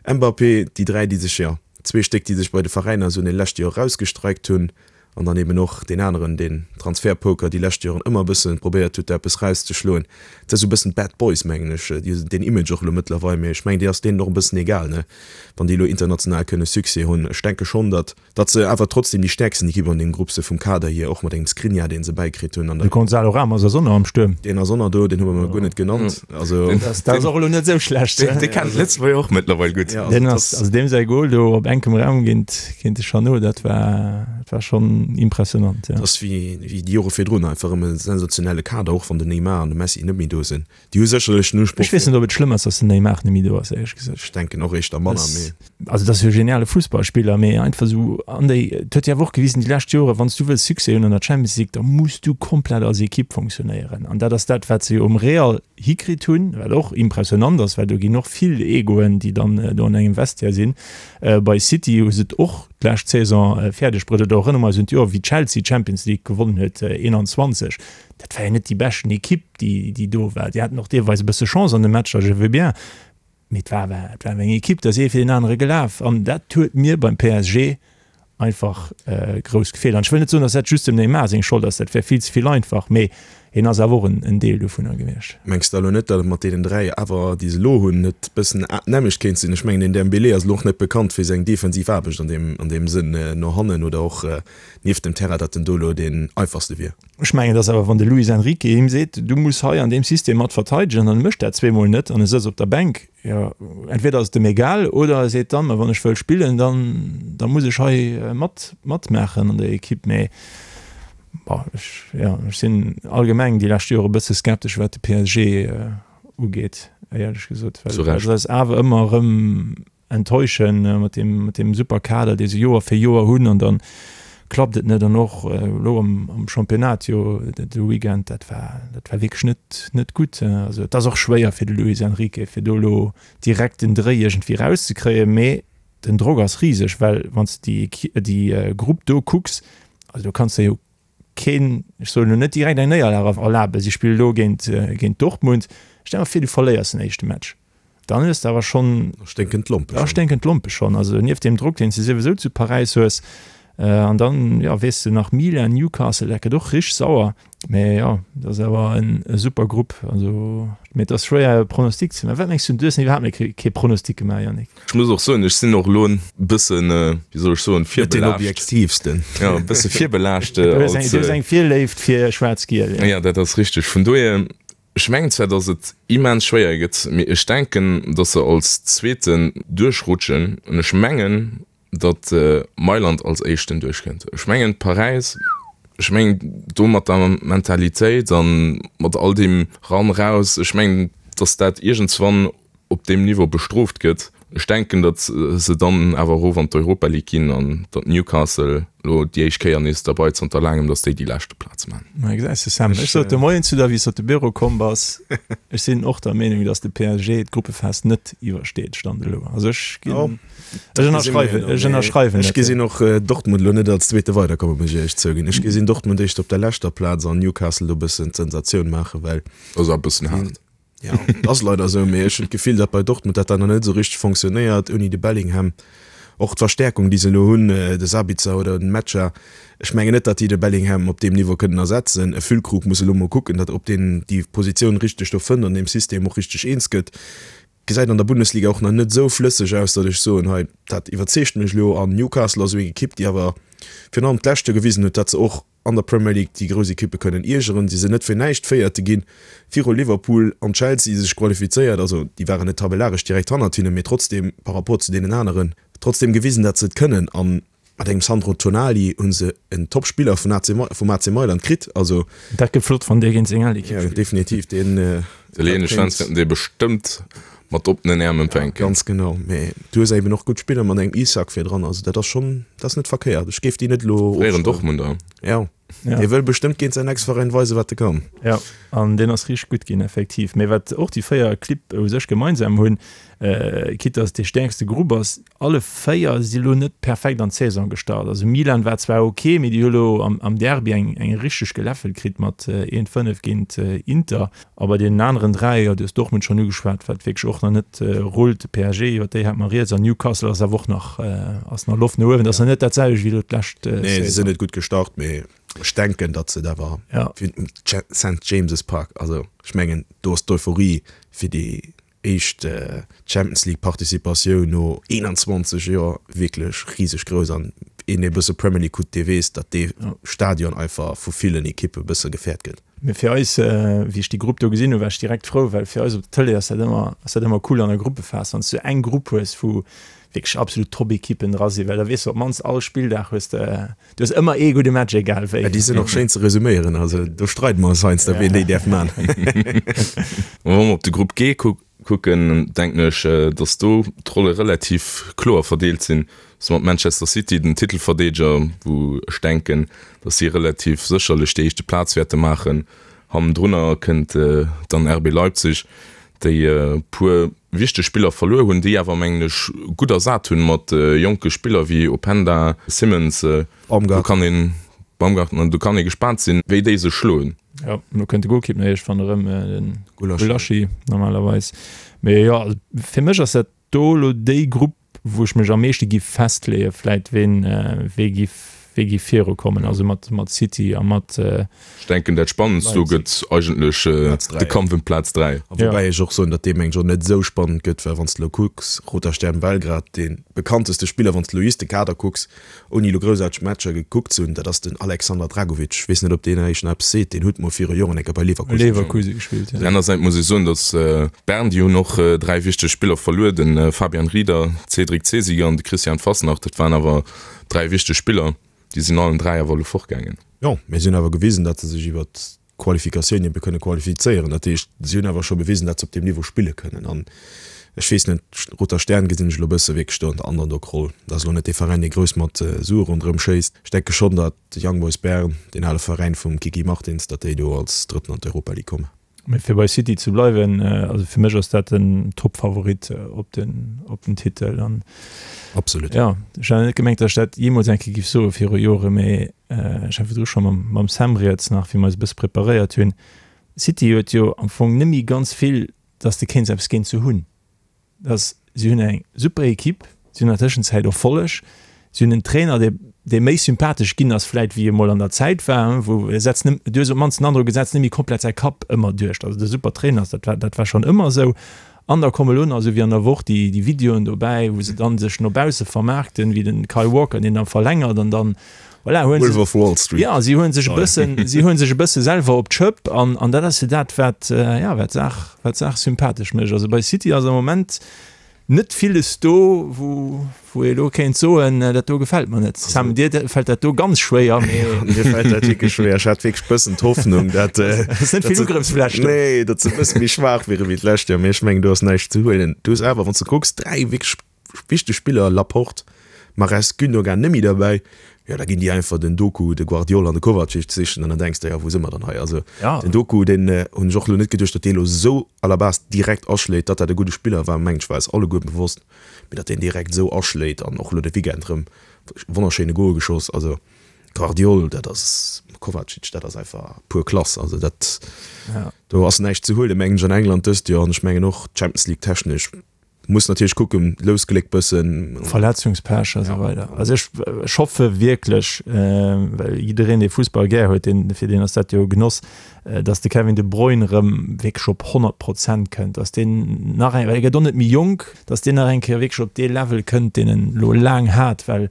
Mbappé, déi 3 déi sech, jo zwee Stéck déi sech bei de Veräiner esou an de leschte Joer erausgestreikt hunn. An dann eben och deen aneren, deen Transfertpoker déi lescht Joren ëmmer e bësse probéiert huet, do eppes rauszeschloen. Dat ass esou e bëssen d'Bad Boys, mengen ech. Déi hunn deen Image och elo mëttlerweil, mee ech mengen, déi ass deenen och e bëssen egal, ne, wann déi elo international kënne Succès hunn. Ech denke schonn, datt, datt se awer trotzdem déi stäerksten Ekipp an deem Grupp si vum Kader hier, och mat engem Skriniar, dee se bäikritt hunn. An De Gonzalo Ramos ass och nach am Stuerm. Deen ass och nach do, deen hu mer guer net genannt. Also, Dat ass och elo net esou schlecht. Deen kennt d'Lëtzebuerger och mëttlerweil gutt. Ja, also Deen ass, also deem säi Goal do op enkem Raum géint, géint de Chanot, dat war, dat war schonn impressionant, ja. Dat ass wéi, wéi déi Jore virdrun, einfach erëm e sensationelle Kader, och wann den Neymar an de Messi net méi do sinn. Déi hu sécherlech den Usproch. Ech weess net, ob et schlëmm ass, datt den Neymar net méi do ass, éierlech gesot. Ech denken och éischter manner, mee. Also dat ass jo e geniale Fussballspiller, mee einfach esou an déi, et huet jo awer och gewisen déi lescht Joren, wann s du wëlls Succès hunn an der Champions League, da muss du komplett als Ekipp funktionéieren. An dat ass dat, wat se jo um Real hikritt hunn, wat och impressionant ass, well do ginn och vill Egoen, déi dann do an engem Vestiaire sinn. Bei City hu se et och d'lescht Saison fäerdeg bruet, oder erënnere mer eis un d'Joer, wéi Chelsea d'Champions League gewonnen huet, 21, dat war jo net déi beschten Ekipp, déi déi do war. Déi haten och deelweis e bësse Chance an de Matcher, je veux bien, Mee et war awer, et war awer eng Ekipp, da ass ee fir deen anere gelaf an dat huet mir beim PSG einfach grouss gefeelt. An ech wëll net soen, datt dat just dem Neymar seng Schold ass, dat wär vill ze vill einfach, mee hien ass awer och en Deel dovunner gewiescht. Mengs de elo net, datt et mat deenen 3 awer, déi se elo hunn, net bëssen d'nämmlecht kéint sinn? Ech mengen, den Dembélé ass elo och net bekannt fir seng defensiv Aarbecht an deem, an deem Sënn no hannen oder och nieft dem Terrain, datt en do elo deen einfachste wier. Ech mengen, dass awer, wann de Luis Enrique him seet, du muss hei an deem System mat verteidegen, an e mécht dat zweemol net an e sëtzt op der Bänk, jo, entweder ass et em egal oder e seet dann, ma wann ech wëll spillen, dann da muss ech hei mat matmaachen an der Ekipp. Mee bon, ech, jo, ech sinn allgemeng déi lescht Jore e bësse skeptesch, wat de PSG ugeet, éierlech gesot, well se eis awer ëmmer erëm enttäuschen mat deem mat deem super Kader dee se Joer fir Joer hunn an dann klappt et net an och elo am am Championnat jo de Weekend dat war dat war wierklech net net gutt. Also et ass och schwéier fir de Luis Enrique fir do elo direkt den Dréi iergendwéi rauszekréien, mee den Drock ass riseg, well wann s de déi déi Grupp do kucks, also do kanns de jo keen, ech soen elo net direkt eng Néierlag erlaben, si spille elo géint géint Dortmund, stell der vir du verléiers den éischte Match. Dann hues de awer schonn. Da sténken d'Lompe schonn. Da sténken d'Lompe schonn. Also nieft deem Drock, deen s de souwisou zu Paräis hues. An dann, jo, weess de nach Milan, Newcastle, dat gëtt och richteg sauer. Mä jo, dat ass awer e super Grupp. Also, mee et ass schwéier e Pronostic ze maachen. Wat mengs du? Du hues nach iwwerhaapt nach kee Pronostic gemaach, Yannick. Ech muss och soen, ech sinn och elo e bëssen, wéi soll ech soen, virbelaascht. Net deen objektiivsten. Jo, e bësse virbelaascht. Du hues eng Virléift fir Schwaarz-Giel. Jo, dat ass richteg. Vun dohier. Ech mengen zwar, dass et immens schwéier gëtt, mee ech denken, dass se als Zweeten duerchrutschen. An ech mengen. datt Mailand als éischten duerchkënnt. Ech mengen Paräis, ech mengen do mat der Mentalitéit a mat all deem ran raus, ech mengen datt dat iergendswann op deem Niveau bestrooft gëtt. Ech denken, datt se dann awer erof an d'Europa League ginn an datt Newcastle elo déi éischt Kéier nees derbei zanter laangem, datt déi déi leschte Plaz maachen. Ma gesäis de Sam, ech sot de Moien zu der, wéi s de op de Büro komm bass, ech sinn och der Meenung, datt de PSG d'Gruppephas net iwwersteet, Stand elo. Also ech ginn, ech ënnerschreiwen, ech ënnerschreiwen Ech net. gesinn och Dortmund elo net als Zweete weiderkommen, muss ech éierlech zouginn. Ech gesinn Dortmund éischter op der leschter Plaz an Newcastle do e bëssen d'Sensatioun maachen, well. Ass awer e bëssen haart. Ja, et ass leider esou, mee ech hunn d'Gefill, datt bei Dortmund dat dann nach net esou richteg fonctionnéiert ouni de Bellingham. Och d'Verstäerkung, déi se elo hunn, de Sabitzer oder den Mecha, ech mengen net, datt déi de Bellingham op deem Niveau kënnen ersetzen. E Füllkrug muss elo mol kucken, datt ob deen déi Positioun richteg do fënnt an deem System och richteg eens gëtt. Gesäit an der Bundesliga och nach net esou flësseg aus, datt ech soen, hei dat iwwerzeegt mech elo. An Newcastle ass esou eng Ekipp, déi awer virun allem d'lescht Joer gewisen huet, datt se och an der Premier League déi grouss Ekippe kënnen iergeren. Si sinn net fir näischt Véierte ginn, viru Liverpool an Chelsea sech qualifizéiert. Also déi waren net tabellaresch direkt hannert hinnen, mee trotzdeem par rapport zu deenen aneren trotzdeem gewisen, datt se et kënnen. A mat engem Sandro Tonali hu se en Top-Spiller vun AC vum AC Mailand kritt. Also Dat gëtt flott, wann dee géint seng al Ekipp spillt. Definitiv, deen. D'italieenesch Fans wäerten dee bestëmmt mat oppenen Äerm empfänken. Ganz genau, mee du hues eben och gutt Spiller mat engem Isak virdran, also dat ass schonn, dat ass net verkéiert. Ech géif déi net elo Fréieren Dortmunder. Ja, dee wëll bestëmmt géint säin Ex-Veräin weisen, wat e kann. Ja, an deen ass richteg gutt ginn, effektiv. Mee wat och déi 4 Clibb u sech gemeinsam hunn, quitte dass et dee stäerkste Grupp ass, alle 4 si lo net perfekt an d'Saison gestart. Also Milan war zwar ok, mee déi hu lo am Derby eng richteg geläffelt kritt mat 1, 5 géint Inter. A bei deenen aneren 3, jo, du hues Dortmund schonn ugeschwat, wat wierklech och nach net rullt, de PSG, iwwer déi hate mer rieds, an Newcastle ass awer och nach, ass nach Loft no uewen. Dat ass nach net dat selwecht wéi elo d'lescht Saison. Nee, se sinn net gutt gestart, mee ech denken, datt se et awer fir den St. James's Park, also ech mengen, do ass d'Euphorie fir déi éischt Champions League Participatioun no 21 Joer wierklech riseg grouss an een dee bësse Premier League kuckt, dee weess, datt dee Stadion einfach vu villen Ekippe bësse gefäert gëtt. Mee fir eis, wéi ech déi Grupp do gesinn hunn, war ech direkt frou, well fir eis op der Tëlee ass dat ëmmer, ass dat ëmmer cool an der Gruppephas, wann s du eng Grupp hues, wou wierklech absolut Top-Ekippen dra sinn, well da weess de op d'mannst all Spilldag hues de, du hues ëmmer ee gudde Match, egal wéi. Déi sinn och schéin ze resuméieren, also do streide mer eis heiansdo, wien déi däerf man. Wa mer op de Grupp G kucken, denken ech, datt do d'Rolle relativ kloer verdeelt sinn. Dass mat Manchester City den Titelverdeedeger, wou ech denken, datt si relativ sécherlech déi éischte Plaz wäerte maachen. Hannendrunner kënnt dann RB Leipzig, déi e puer wichteg Spiller verluer hunn, déi awer, mengen ech, gutt ersat hunn mat jonke Spiller wéi Openda, Simmons. Do kann een, Baumgartner, do kann ee gespaant sinn, wéi déi sech schloen. Jo, elo kënnt de Golkipp nach iergendwann erëm, de Gulaschi normalerweis. Mee jo, fir mech ass dat do elo déi Grupp, wou ech mech am meeschte giff festleeën, vläit ween wee giff wee giff viru kommen, also mat mat City a mat. Ech denken dat spannendst do gëtt eigentlech de Kampf ëm d'Plaz 3. A woubäi ech och soen, datt dee mengen ech och net esou spannend gëtt, well wann s de elo kucks, Roter Stern Belgrad, dee bekannteste Spiller, wann s de elo just de Kader kucks, ouni elo groussaarteg Matcher gekuckt ze hunn, dat ass den Alexander Dragovic. Ech weess net, ob deen Iech nach eppes seet. Deen huet mol viru Joren eng Kéier bei Leverkusen Leverkusen gespillt, ja. Anersäits muss ech soen, datt Bern, déi hunn och 3 wichteg Spiller verluer, de Fabian Rieder, Cédric Zesiger an de Christian Fassnacht. Dat waren awer 3 wichteg Spiller. Déi sinn allen 3 awer elo fortgaangen. Jo, mee si hunn awer gewisen, datt se sech iwwert Qualifikatioun ebe kënne qualifizéieren. Dat heescht, si hunn awer scho bewisen, datt se op deem Niveau spille kënnen. An ech weess net, Roter Stern gesinn ech elo e bësse wierklech do an der Underdog-Roll. Dat ass elo net dee Veräin, dee grouss mat Sue ronderëm schéisst. Ech denke schonn, datt Young Boys Bern, deen ale Veräin vum Kiki Martins, datt déi do als Drëtten an d'Europa League kommen. Mee fir bei City ze bleiwen, also fir mech ass dat den Top-Favorit op den, op den Titel. An Absolut. Ja, ech hat net gemengt, datt ech dat jeemools eng Kéier géif soe viru Jore, mee Ech hat virdru scho mam Sam rieds nach, wéi mer eis e bësse preparéiert hunn. City huet jo am Fong net méi ganz vill, dass de kéints eppes géint se hunn. Dass si hunn eng super Equipe, si hunn an der Tëschenzäit Erfolleg, si hunn en Trainer, dee dee méi sympathesch ginn ass vläit wéi e mol an der Zäit war, wou e setzt net, du hues op d'mannst den Androck, e setzt net méi komplett säi Kapp ëmmer duerch. Dass et e super Trainer ass, dat war dat war schonn ëmmer esou. An da komme lo nach, esou wéi an der Woch, déi déi Videoen dobäi, wou se dann sech no bausse vermaarkten, wéi den Kyle Walker, deen da verlängert an dann, voilà, huelen se, Wolf of Wall Street. ja, si huelen sech e bëssen, si huelen sech e bësse selwer op d'Schëpp an an dat ass jo dat, wat, ja, wat d'Saach, wat d'Saach sympathesch mécht. Also bei City ass am Moment. Net villes do, wou wou ee lo kéint soen, dat do gefält mer net. Sam, dir fält dat do ganz schwéier, mee. Mir fält dat wierklech schwéier. Ech hat wierklech bëssen d'Hoffnung, dat. Ass net vill Ugrëffsfläch do. Nee, datt se e bësse méi schwaach wiere wéi d'lescht Joer, mee ech mengen, do ass näischt ze huelen. Du hues awer, wann s de kucks, 3 wierklech wichteg Spiller, Laporte, Mahrez, Gündogan, net méi derbäi. Jo, da ginn déi einfach den Doku, de Gvardiol an de Kovacic sichen an dann denks de, jo, wou si mer dann hei? Also den Doku, deen hunn ech och elo net geduecht, datt dee elo esou à la base direkt aschléit. Datt dat e gudde Spiller war, mengen ech, war eis alleguer bewosst, mee datt deen direkt esou aschléit an och elo de Weekend erëm wonnerschéine Gol geschoss. Also Gvardiol, dat ass, Kovacic, dat ass einfach pur Klass. Also dat, do ass näischt ze huelen, mengen ech, an England dëst Joer an ech mengen och Champions League technesch. Muss natierlech kucken, Lousgléck bëssen. Verletzungspech a sou weider. Also ech ech hoffe wierklech, well jiddereen dee Fussball gär huet, deen fir deen ass dat jo e Genoss, datt de Kevin De Bruyne erëm wierklech op 100 Prozent kënnt, datt deen nach eng, well e gëtt och net méi jonk, datt deen nach eng Kéier wierklech op dee Level kënnt, deen en elo laang hat, well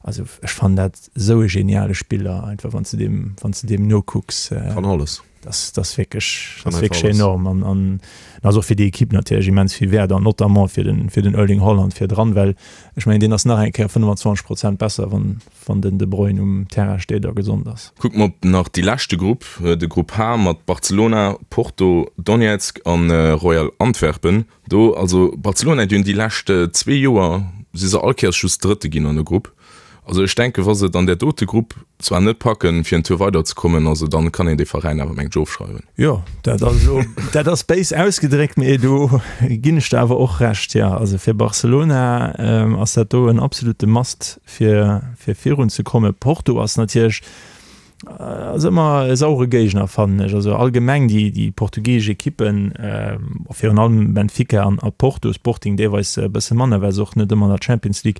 also ech fannen dat esou e geniale Spiller einfach, wann s de deem, wann s de deem nokucks. Kann alles. Das, das wierklech, das wierklech enorm an, an ass och fir déi Ekipp natierlech immens vill wäert an notamment fir den, fir den Erling Haaland virdran, well ech mengen deen ass nach eng Kéier 25 Prozent besser, wann, wann den De Bruyne um Terrain steet a gesond ass. Kucke mer op nach déi leschte Grupp, de Grupp H mat Barcelona, Porto, Donetsk an Royal Antwerpen. Do, also Barcelona, déi hunn déi lescht zwee Joer si se all Kéiers just Drëtte ginn an der Grupp. Also ech denken, wa se et an där dote Grupp zwar net packen, fir en Tour weider ze kommen, also dann kann een dee Veräin awer mengt ech ofschreiwen. Jo, dat ass elo, dat ass béis ausgedréckt, mee do ginn ech der awer och Recht, jo. Also fir Barcelona ass dat do en absolute Must fir fir virun ze kommen. Porto ass natierlech, Ass ëmmer e sauere Géigner fannen ech. Also allgemeng déi déi portugiesesch Ekippen, virun allem Benfica an a Porto, Sporting deelweis e bësse manner, well se och net ëmmer an der Champions League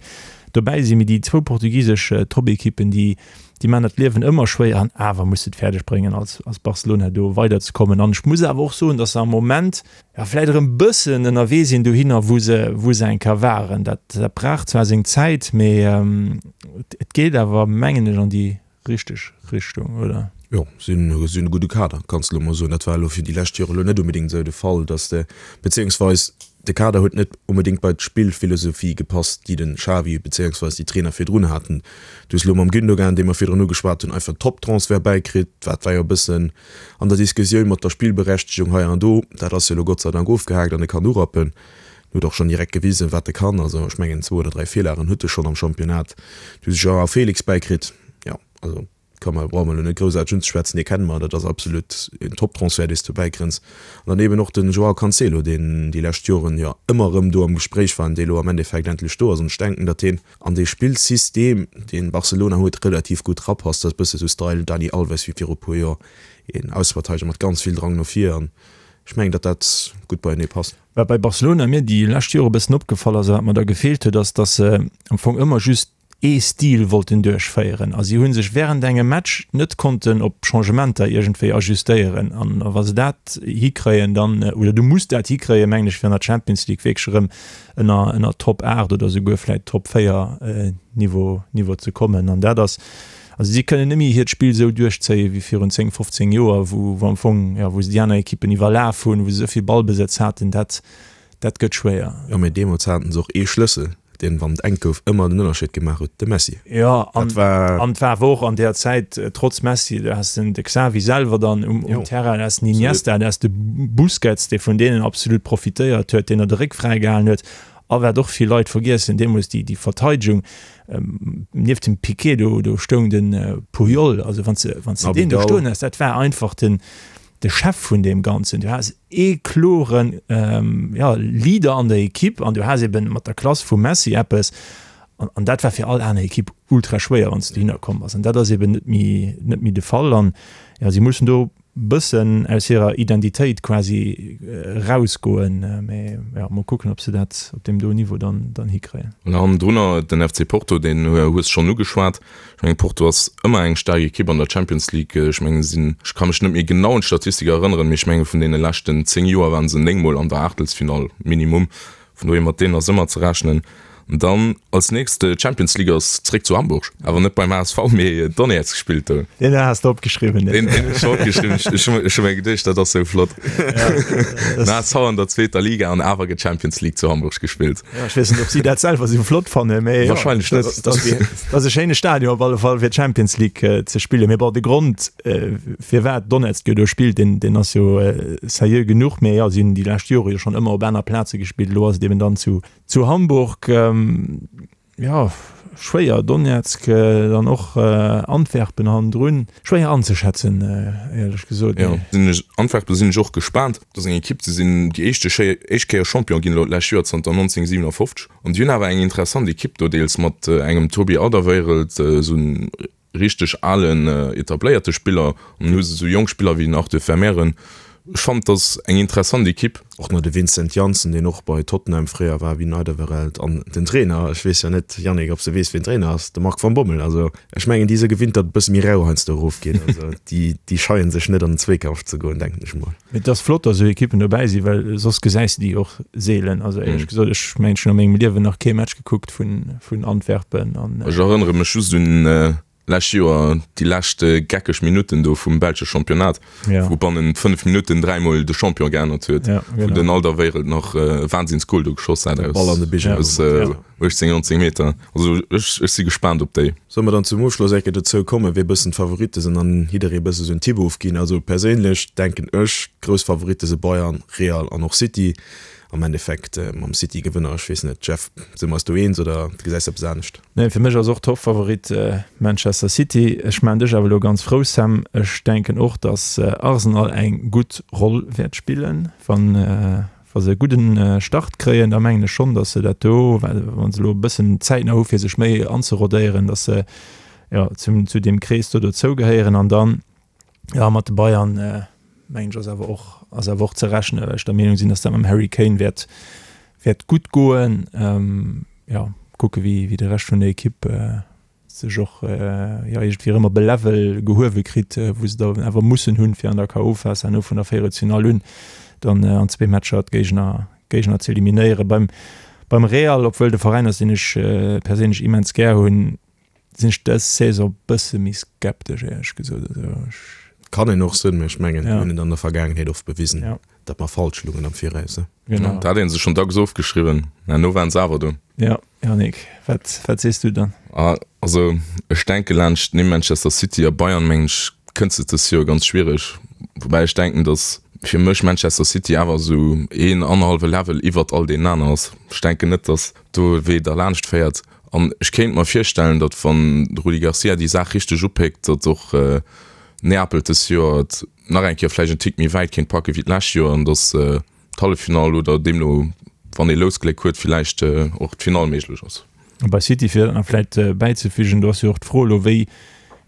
dobäi sinn. Mee déi zwou portugisesch Toppekippen, déi déi maachen der d'Liewen ëmmer schwéier an awer muss se et fäerdeg bréngen als als Barcelona do weiderzekommen. An ech muss awer och soen, datt se am Moment, jo vläit erëm bëssen ënnerwee sinn dohinner wou se wou se eng Kéier waren. Dat dat brauch zwar seng Zäit, mee et geet awer mengen ech an déi richteg Richtung, oder? Jo, si hunn e gudde Kader, kanns de elo mol soen. Dat war elo fir déi lescht Jore elo net onbedéngt esou de Fall, datt de, beziéungsweis de Kader huet net onbedéngt bei d'Spillphilosophie gepasst, déi de Xavi beziéungsweis déi Trainer virdrun haten. Du hues elo mam Gündogan, dee mer virdrun ugeschwat hunn, einfach en Top-Transfert bäikritt. Dat war jo e bëssen an der Diskussioun mat der Spillberechtegung hei an do. Dat ass jo elo Gott sei Dank ofgehaakt an e kann urappen. En huet och schonn direkt gewisen, wat e kann. Also ech mengen zwou oder dräi Virlagen huet e schonn am Championnat. Du hues Joao Felix bäikritt. Jo, also ka mer, brauche mer elo net groussaarteg unzeschwätzen, dee kenne mer. Dat ass absolut en Top-Transfert, dee s du bäikrënns. An dann eben och den Joao Cancelo, deen déi lescht Joren jo ëmmer erëm do am Gespréich war an dee elo am Endeffekt endlech do ass. An ech denken, datt deen an dee Spillsystem, deen Barcelona huet, relativ gutt rapasst. Dat ass e bësse sou Style Dani Alves wéi viru puer Joer, een Ausverteideger mat ganz vill Drang no vir. An ech mengen, datt dat gutt beienee passt. Wat bei Barcelona mir déi lescht Jore e bëssen opgefall ass a wat mer da gefeelt huet, ass, datt se am Fong ëmmer just ee Stil wollten duerchféieren a si hu sech wärend engem Match net konnten op Changementer iergendwéi ajustéieren. An wa se dat hikréien, dann, oder du muss dat hikréien, mengen ech, fir an der Champions League wierklech erëm ënner, ënner Top 8 oder souguer vläicht Top 4 Niveau, Niveau ze kommen. An dat ass, Also si kënnen net méi hiert Spill esou duerchzéien wéi virun 10, 15 Joer, wou wou am Fong, jo, wou se déi aner Ekippen iwwerlaf hunn, wou se esou vill Ballbesëtz haten. Dat, dat gëtt schwéier. Jo, mee deemools haten se och ee Schlëssel, deen, wann et enk gouf, ëmmer den Ënnerscheed gemaach huet, de Messi. Jo, an an et war awer och an där Zäit, trotz Messi, du has den de Xavi selwer dann um um Terrain, du has den Iniesta, du has de Busquets, dee vun deenen absolut profitéiert huet, deen der de Réck fräigehalen huet. A wat och vill Leit vergiessen, deemools déi déi Verteidegung, Nieft dem Piqué do, do stoung de Puyol, also wann s wann s de deen do stoen has, dat war einfach den de Chef vun deem Ganzen. Du has ee kloren ja Leader an der Ekipp an du has eben mat der Klass vum Messi eppes an an dat war fir all aner Ekipp ultra schwéier, wann s de dohinner komm bass an dat ass eben net méi net méi de Fall an ja si mussen do bëssen aus hirer Identitéit quasi erausgoen, mee jo, mol kucken, ob se dat op deem do Niveau dann dann hikréien. An hannendrunner den FC Porto, deen hues schonn ugeschwat. Ech mengen Porto ass ëmmer eng staark Ekipp an der Champions League. Ech mengen se sinn, ech ka mech net méi genau un d'Statistik erënneren, mee ech menge vun deene leschten 10 Joer waren se 9 mol an der Aachtelsfinall minimum. Vun dohier mat deenen ass ëmmer ze rechnen. Dann als nächst Champions League ass zréck zu Hamburg, awer net beim HSV, mee Donetsk spillt do. Deen has de opgeschriwwen. Deen hunn ech opgeschriwwen. Ech hu ech hu mir geduecht, dat ass sou flott. Den HSV an der zweeter Liga an awer gëtt Champions League zu Hamburg gespillt. Ja, ech weess net, ob si dat selwer sou flott fannen, mee jo, Wahrscheinlech net. Dat ass e schéine Stadion op alle Fall fir d'Champions League ze spillen. Mee bon, de Grond firwat Donetsk jo do spillt, deen deen ass jo seriö genuch. Mee jo, si hunn déi lescht Jore jo schonn ëmmer op aner Plaze gespillt. Elo ass et eben dann zu Zu Hamburg, jo, schwéier, Donezk, dann och Antwerpen hannendrun, schwéier anzeschätzen, éierlech gesot. Jo, sinn ech, Antwerpen sinn ech och gespaant. Dat ass eng Ekipp, déi sinn déi éischte Schéier, éischt Kéier Champion ginn elo d'lescht Joer, zanter 1957. An déi hunn awer eng interessant Ekipp do, deels mat engem Toby Alderweireld, esou en richteg alen etabléierte Spiller an hu se sou jonk Spiller wéi den Arthur Vermeeren. Ech fannen et ass eng interessant Ekipp. Och nach de Vincent Janssen, deen och bei Tottenham fréier war, wéi den Alderweireld an den Trainer, ech weess jo net Yannick, ob s de weess wien Trainer ass, de Marc van Bommel. Also ech mengen déi si gewinnt, datt et e bësse méi rau heiansdo erofgeet. Also déi déi scheien sech net an den Zweekampf ze goen, denken ech mol. Mee et ass flott, datt esou Ekippen dobäi sinn, well soss gesäis de déi och seelen. Also éierlech gesot, ech mengen ech hunn a mengem Liewen nach kee Match gekuckt vun vun Antwerpen an. Ech erënnere mech just un lescht Joer déi lescht geckeg Minutten do vum belsche Championnat, wou bannent 5 Minutten dräimol de Champion geännert huet, wou den Alderweireld nach e Wahnsinnsgol do geschoss hat aus 18, 19 Meter. Also ech ech si gespaant op déi. Solle mer dann zum Ofschloss eng Kéier dozou kommen, wee bëssen d'Favoritte sinn an jidderee bësse sou en Tipp ofginn? Also perséinlech denken ech, d'grouss Favoritte si Bayern, Real an och City. Am Endeffekt mam City-Gewënner, ech weess net, Jeff, si mer eis do eens oder gesäis de eppes anescht? Nee, fir mech ass och Toppfavorit Manchester City. Ech maachen dech awer elo ganz frou, Sam. Ech denken och, datt Arsenal eng gutt Roll wäert spillen. Wann wa se e gudden Start kréien, da mengen ech schonn, datt se dat do, well wa se elo e bëssen Zäit nach hu fir sech méi anzerodéieren, datt se jo zum zu deem Krees do dozougehéieren. An dann Ja, mat de Bayern mengen ech ass awer och, ass awer och ze rechnen, well ech der Meenung sinn, datt dat mam Harry Kane wäert, wäert gutt goen. Ja, kucke wéi, wéi de Rescht vun der Ekipp sech och jo iergendwéi erëm op e Level gehuewe kritt, wou se da awer mussen hunn, fir an der KO-Phas herno vun der Véierelsfinall un dann an zwee Matcher d'Géigner, Géigner ze eliminéieren. Beim, beim Real, obwuel de Veräin ass, deen ech perséinlech immens gär hunn, Sinn ech dës Saison bësse méi skeptesch éierlech gesot. Also ech. Kann een och sinn, mee ech mengen mir hunn et an der Vergaangenheet oft bewisen, datt mer falsch lungen am Viraus. Genau. Dat hat een sech schonn dacks ofgeschriwwen, mä elo waren se awer do. Jo, Yannick, wat, wat sees du dann? Also ech denke laanscht nimm Manchester City a Bayern mengen ech kënns de dës Joer ganz schwiereg. Woubäi ech denken, datt fir mech Manchester City awer esou een annerhallwe Level iwwert all deenen aner ass. Ech denken net, datt do e Wee derlaanscht féiert. An ech kéint mer virstellen, datt wann de Rudi Garcia déi Saach richteg upéckt, datt och Neapel dës Joer et nach eng Kéier vläicht en Tick méi wäit kéint packe wéi d'lescht Joer an datt d'Halleffinall oder deemno, wann ee Lousgléck huet, villäicht och d'Finall méiglech ass. A bei City, fir dat nach vläicht bäizefügen, do ass jo och d'Fro elo, wéi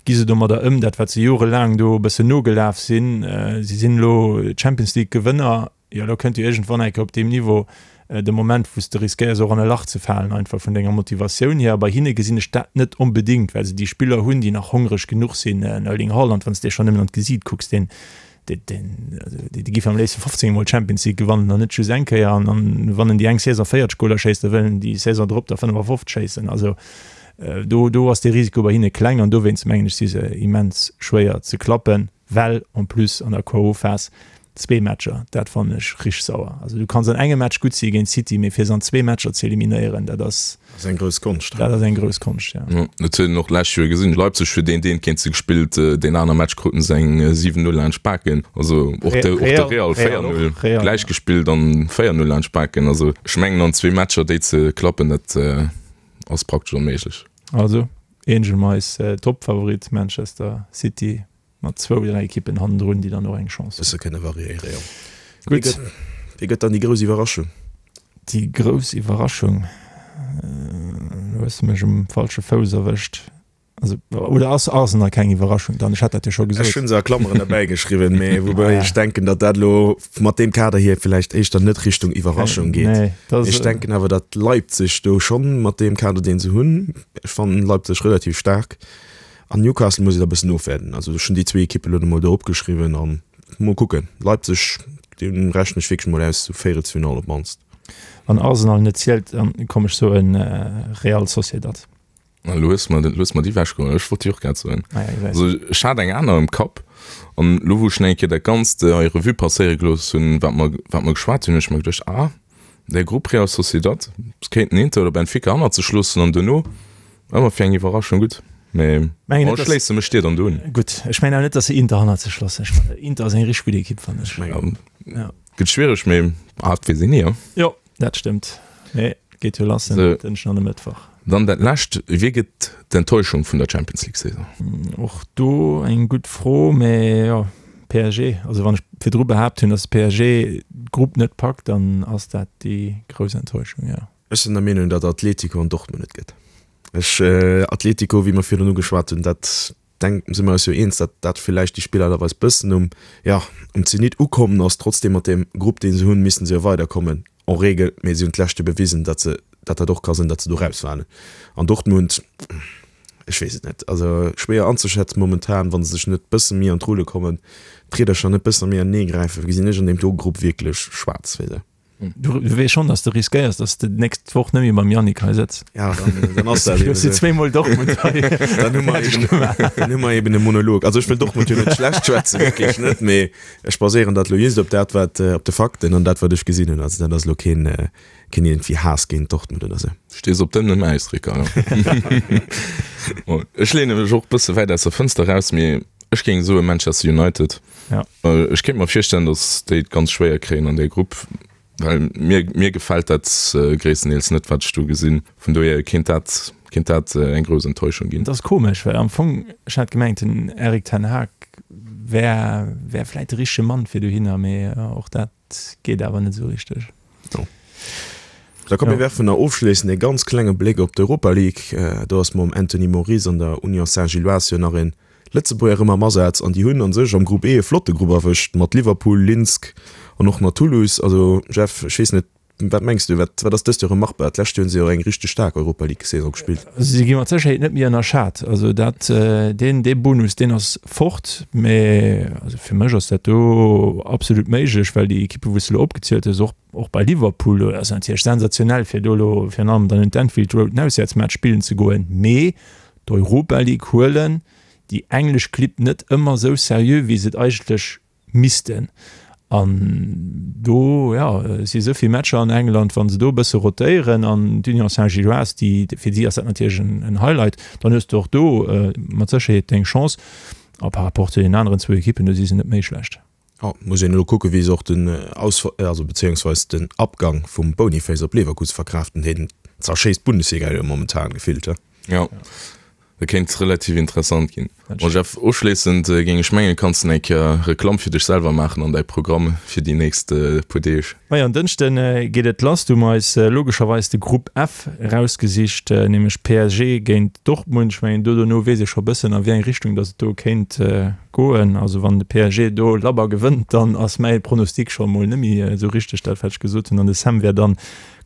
gi se domadder ëm, dat wat se jorelaang do e bëssen nogelaf sinn. Si sinn elo Champions League Gewënner. Jo, elo kënnt jo iergendwann eng Kéier op deem Niveau de Moment, wou s de riskéiers och an e Lach ze falen, einfach vun denger Motivatioun hier. A bei hinne gesinn ech dat net onbedéngt, well se déi Spiller hunn, déi nach hongreg genuch sinn. En Erling Haaland, wann s de schonn nëmmen an d'Gesiit kucks, deen, deen, deen, dee giff am léifste 15 Mol d'Champions League gewannen an net just eng Kéier. An, an wann en déi eng Saison 40 Goler schéisst, da wëll en déi Saison drop der 55 schéissen. Also do, do ass de Risiko bei hinne kleng an dowéinst mengen ech, si se immens schwéier ze klappen. Well en plus an der KO-Phas zwee Matcher, dat fannen ech richteg sauer. Also du kanns an engem Match gutt si géint City, mee fir se an zwee Matcher ze eliminéieren, dat ass. Dat ass eng grouss Konscht. Dat ass eng grouss Konscht, ja. Jo, dat huet een och d'lescht Joer gesinn. Leipzig huet een deen géint se gespillt, deen aner Match kruten se eng 7, 0 laanscht d'Baken. Also och de, och de Real 4, 0 gläich gespillt an 4, 0 laanscht d'Baken. Also ech mengen an zwee Matcher déi ze klappen, dat ass praktesch onméiglech. Also Angel Mais, Toppfavorit Manchester City. Mat zwou, dräi Ekippen hannendrun, déi dann och eng Chance hunn. Bësse kënne variéiere, jo. Gutt. Wie gëtt dann déi grouss Iwwerraschung? Déi grouss Iwwerraschung? Elo hues de mech um falsche Fouss erwëscht. Also, oder ass Arsenal keng Iwwerraschung dann? Ech hat dat jo scho gesot. Ech hu se a Klammeren derbäi geschriwwen, mee woubäi ech denken, datt dat elo mat deem Kader hier villäicht éischter net Richtung Iwwerraschung geet. Nee, dat ass. Ech denken awer, datt Leipzig do schonn mat deem Kader, deen se hunn, ech fannen Leipzig relativ staark, An Newcastle muss een da bëssen ofwäerden. Also ech hunn déi zwee Ekippen elo mol do opgeschriwwen an mol kucken. Leipzig, deem rechnen ech wierklech mol aus, sou Véierelsfinall op d'mannst. Wann Arsenal net zielt, dann komm ech soen Real Sociedad. Elo hues mer, elo hues mer déi ewechgeholl. Ech wollt déi och grad soen. Ah ja, gesäis. Also ech hat eng aner am Kapp an elo wou ech nach eng Kéier dat Ganzt hei Revue passéiere gelooss hunn, wat mer, wat mer geschwat hunn, hunn ech mer geduecht, ah, der Grupp Real Sociedad, se kéinten Inter oder Benfica hannert sech loossen an duerno ëmmer fir eng Iwwerraschung gutt. Mee Mengen bon, net, ech schléisse mech dir dann do un. Gutt, ech mengen awer net, datt se Inter hannert sech loossen. Ech mengen, Inter ass eng richteg gutt Ekipp, fannen ech. Ja. Gëtt schwiereg, mee ah, et weess een ni, jo. Jo, dat stëmmt. Mee geet jo lass en Dënschden an e Mëttwoch. Dann dat lescht, Wie gëtt d'Enttäuschung vun der Champions League Saison? Och do eng gutt Fro, mee jo, PSG. Also wann ech virdru behaapt hunn, datt PSG d'Grupp net packt, dann ass dat déi grouss Enttäuschung, jo. Ech sinn der Meenung, datt Atletico an Dortmund et gëtt. Ech, Atletico, wéi mer virdrun ugeschwat hunn, dat denk, si mer eis jo eens, datt dat villäicht déi Spillererweis bëssen um, ja, um Zenit ukommen ass. Trotzdem mat deem Grupp, dee se hunn, missten se jo weiderkommen en règle, mee si hunn d'lescht Joer bewisen, datt se, datt dat och ka sinn, datt se do rausfalen. An Dortmund, ech weess et net, also schwéier anzeschätzen momentan, wa se sech net bësse méi an d'Rulle kommen, d'Riedercher net bësse méi anenee gräifen, gesinn ech an deem do Grupp wierklech schwaarz fir se. Du weess schonn, dass de riskéiers, dass de d'nächst Woch net méi mam Yannick hei sëtz. Ja, dann, dann ass dat eben esou. Zweemol Dortmund hei. Dann hu mer eben, dann hu mer eben e Monolog. Also ech wëll Dortmund jo net schlecht schwätzen, wierklech net, mee ech baséieren dat elo just op dat, wat, op de Fakten an dat, wat ech gesinn hunn. Also dat ass elo keen, keen iergendwéi Haass géint Dortmund oder esou. Stees op dënnem Äis, Ricardo. Bon, ech leene mech och e bësse wäit aus der Fënster eraus, mee ech géing soe Manchester United. Ja. Ech kéint mer virstellen, datt déi et ganz schwéier kréien an där Grupp, well mir, mir gefält dat gréisstendeels net, wat ech do gesinn. Vun dohier kéint dat, kéint dat eng grouss Enttäuschung ginn. Et ass komesch, well am Fong, ech hat gemengt, den Erik ten Hag wär, wär vläit de richtege Mann fir dohinner, mee och dat geet awer net esou richteg. Jo. Da komm, mir werfen nach ofschléissend e ganz klenge Bléck op d'Europa League. Do ass mam Anthony Moris an der Union Saint-Gilloise jo nach en Lëtzebuerger erëm am Asaz an déi hunn a sech am Grupp E e flotte Grupp erwëscht mat Liverpool, Linsk an och nach Toulouse. Also Jeff, ech weess net, wat mengs du, wat wat ass dëst Joer erëm machbar? D'lescht Joer hunn se jo eng richteg staark Europa League Saison gespillt. Also si gi mat Sécherheet net méi ënnerschat. Also dat deen dee Bonus deen ass fort, mä also fir mech ass dat do absolut méiglech, well déi Ekippe wou s de elo opgezielt hues, och och bei Liverpool, do ass natierlech sensationell fir do elo virun allem dann un d'Anfield Road en Auswäertsmatch spillen ze goen, mee d'Europa League huelen déi englesch Clibb net ëmmer esou seriö wéi se et eigentlech missten. An do, jo, si esou vill Matcher an England, wa se do e bësse rotéieren an d'Union Saint-Gilloise, déi, fir si ass dat natierlech en Highlight, dann hues de och do mat Sécherheet deng Chance. A par rapport zu deenen aneren zwou Ekippen, do si se net méi schlecht. Jo, muss een elo kucken, wéi se och den Aus-, also bezéiungsweis den Abgang vum Boniface op Leverkusen verkraaften. Deen zerschéisst d'Bundesliga jo momentan gefillt, he? Jo, dat kéint relativ interessant ginn. Bon Jeff, ofschléissend géing ech mengen, kanns de eng Kéier Reklamm fir dech selwer maachen an däi Programm fir déi nächst puer Deeg. Majo, en Dënschde geet et lass. Du hu mer eis logescherweis de Grupp F erausgesicht, nämlech PSG géint Dortmund. Ech mengen, do dono weess ee scho bëssen, a wéi eng Richtung datt et do kéint Goen. Also wann de PSG do labber gewënnt, dann ass mäi Pronostic scho mol net méi esou richteg, dat wat ech gesot hunn, an de Sam wär dann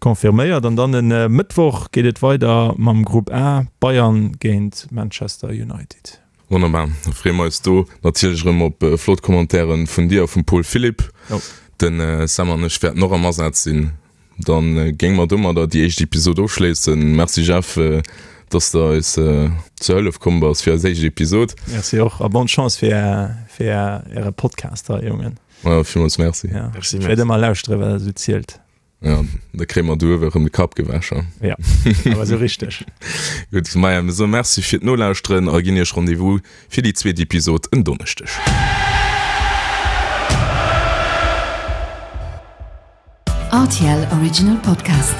confirméiert. An dann e Mëttwoch geet et weider mam Grupp A, Bayern géint Manchester United. Wonnerbar, da freeë mer eis do natierlech erëm op flott Commentairen vun dir a vum Paul Philipp. De Sam an ech wäerten och am Asaz sinn. Dann géing mer domadder déi éischt Episod ofschléissen. Merci Jeff, dass de eis zur Hëllef komm bass fir eis éischt Episod. Merci och a bonne Chance fir fir äre Podcast hei, Jongen. Ja, villmools merci. Ja. Merci, merci. Ech wäert ëmmer lauschteren, wat der esou zielt. Ja, da kréie mer do uewe erëm de Kapp gewäsch. Ja, awer esou richteg. Gutt, maja, mir soe Merci fir d'Nolauschteren a ginn iech Rendez-vous fir déi zweet Episod en Donneschdeg. RTL Original Podcast.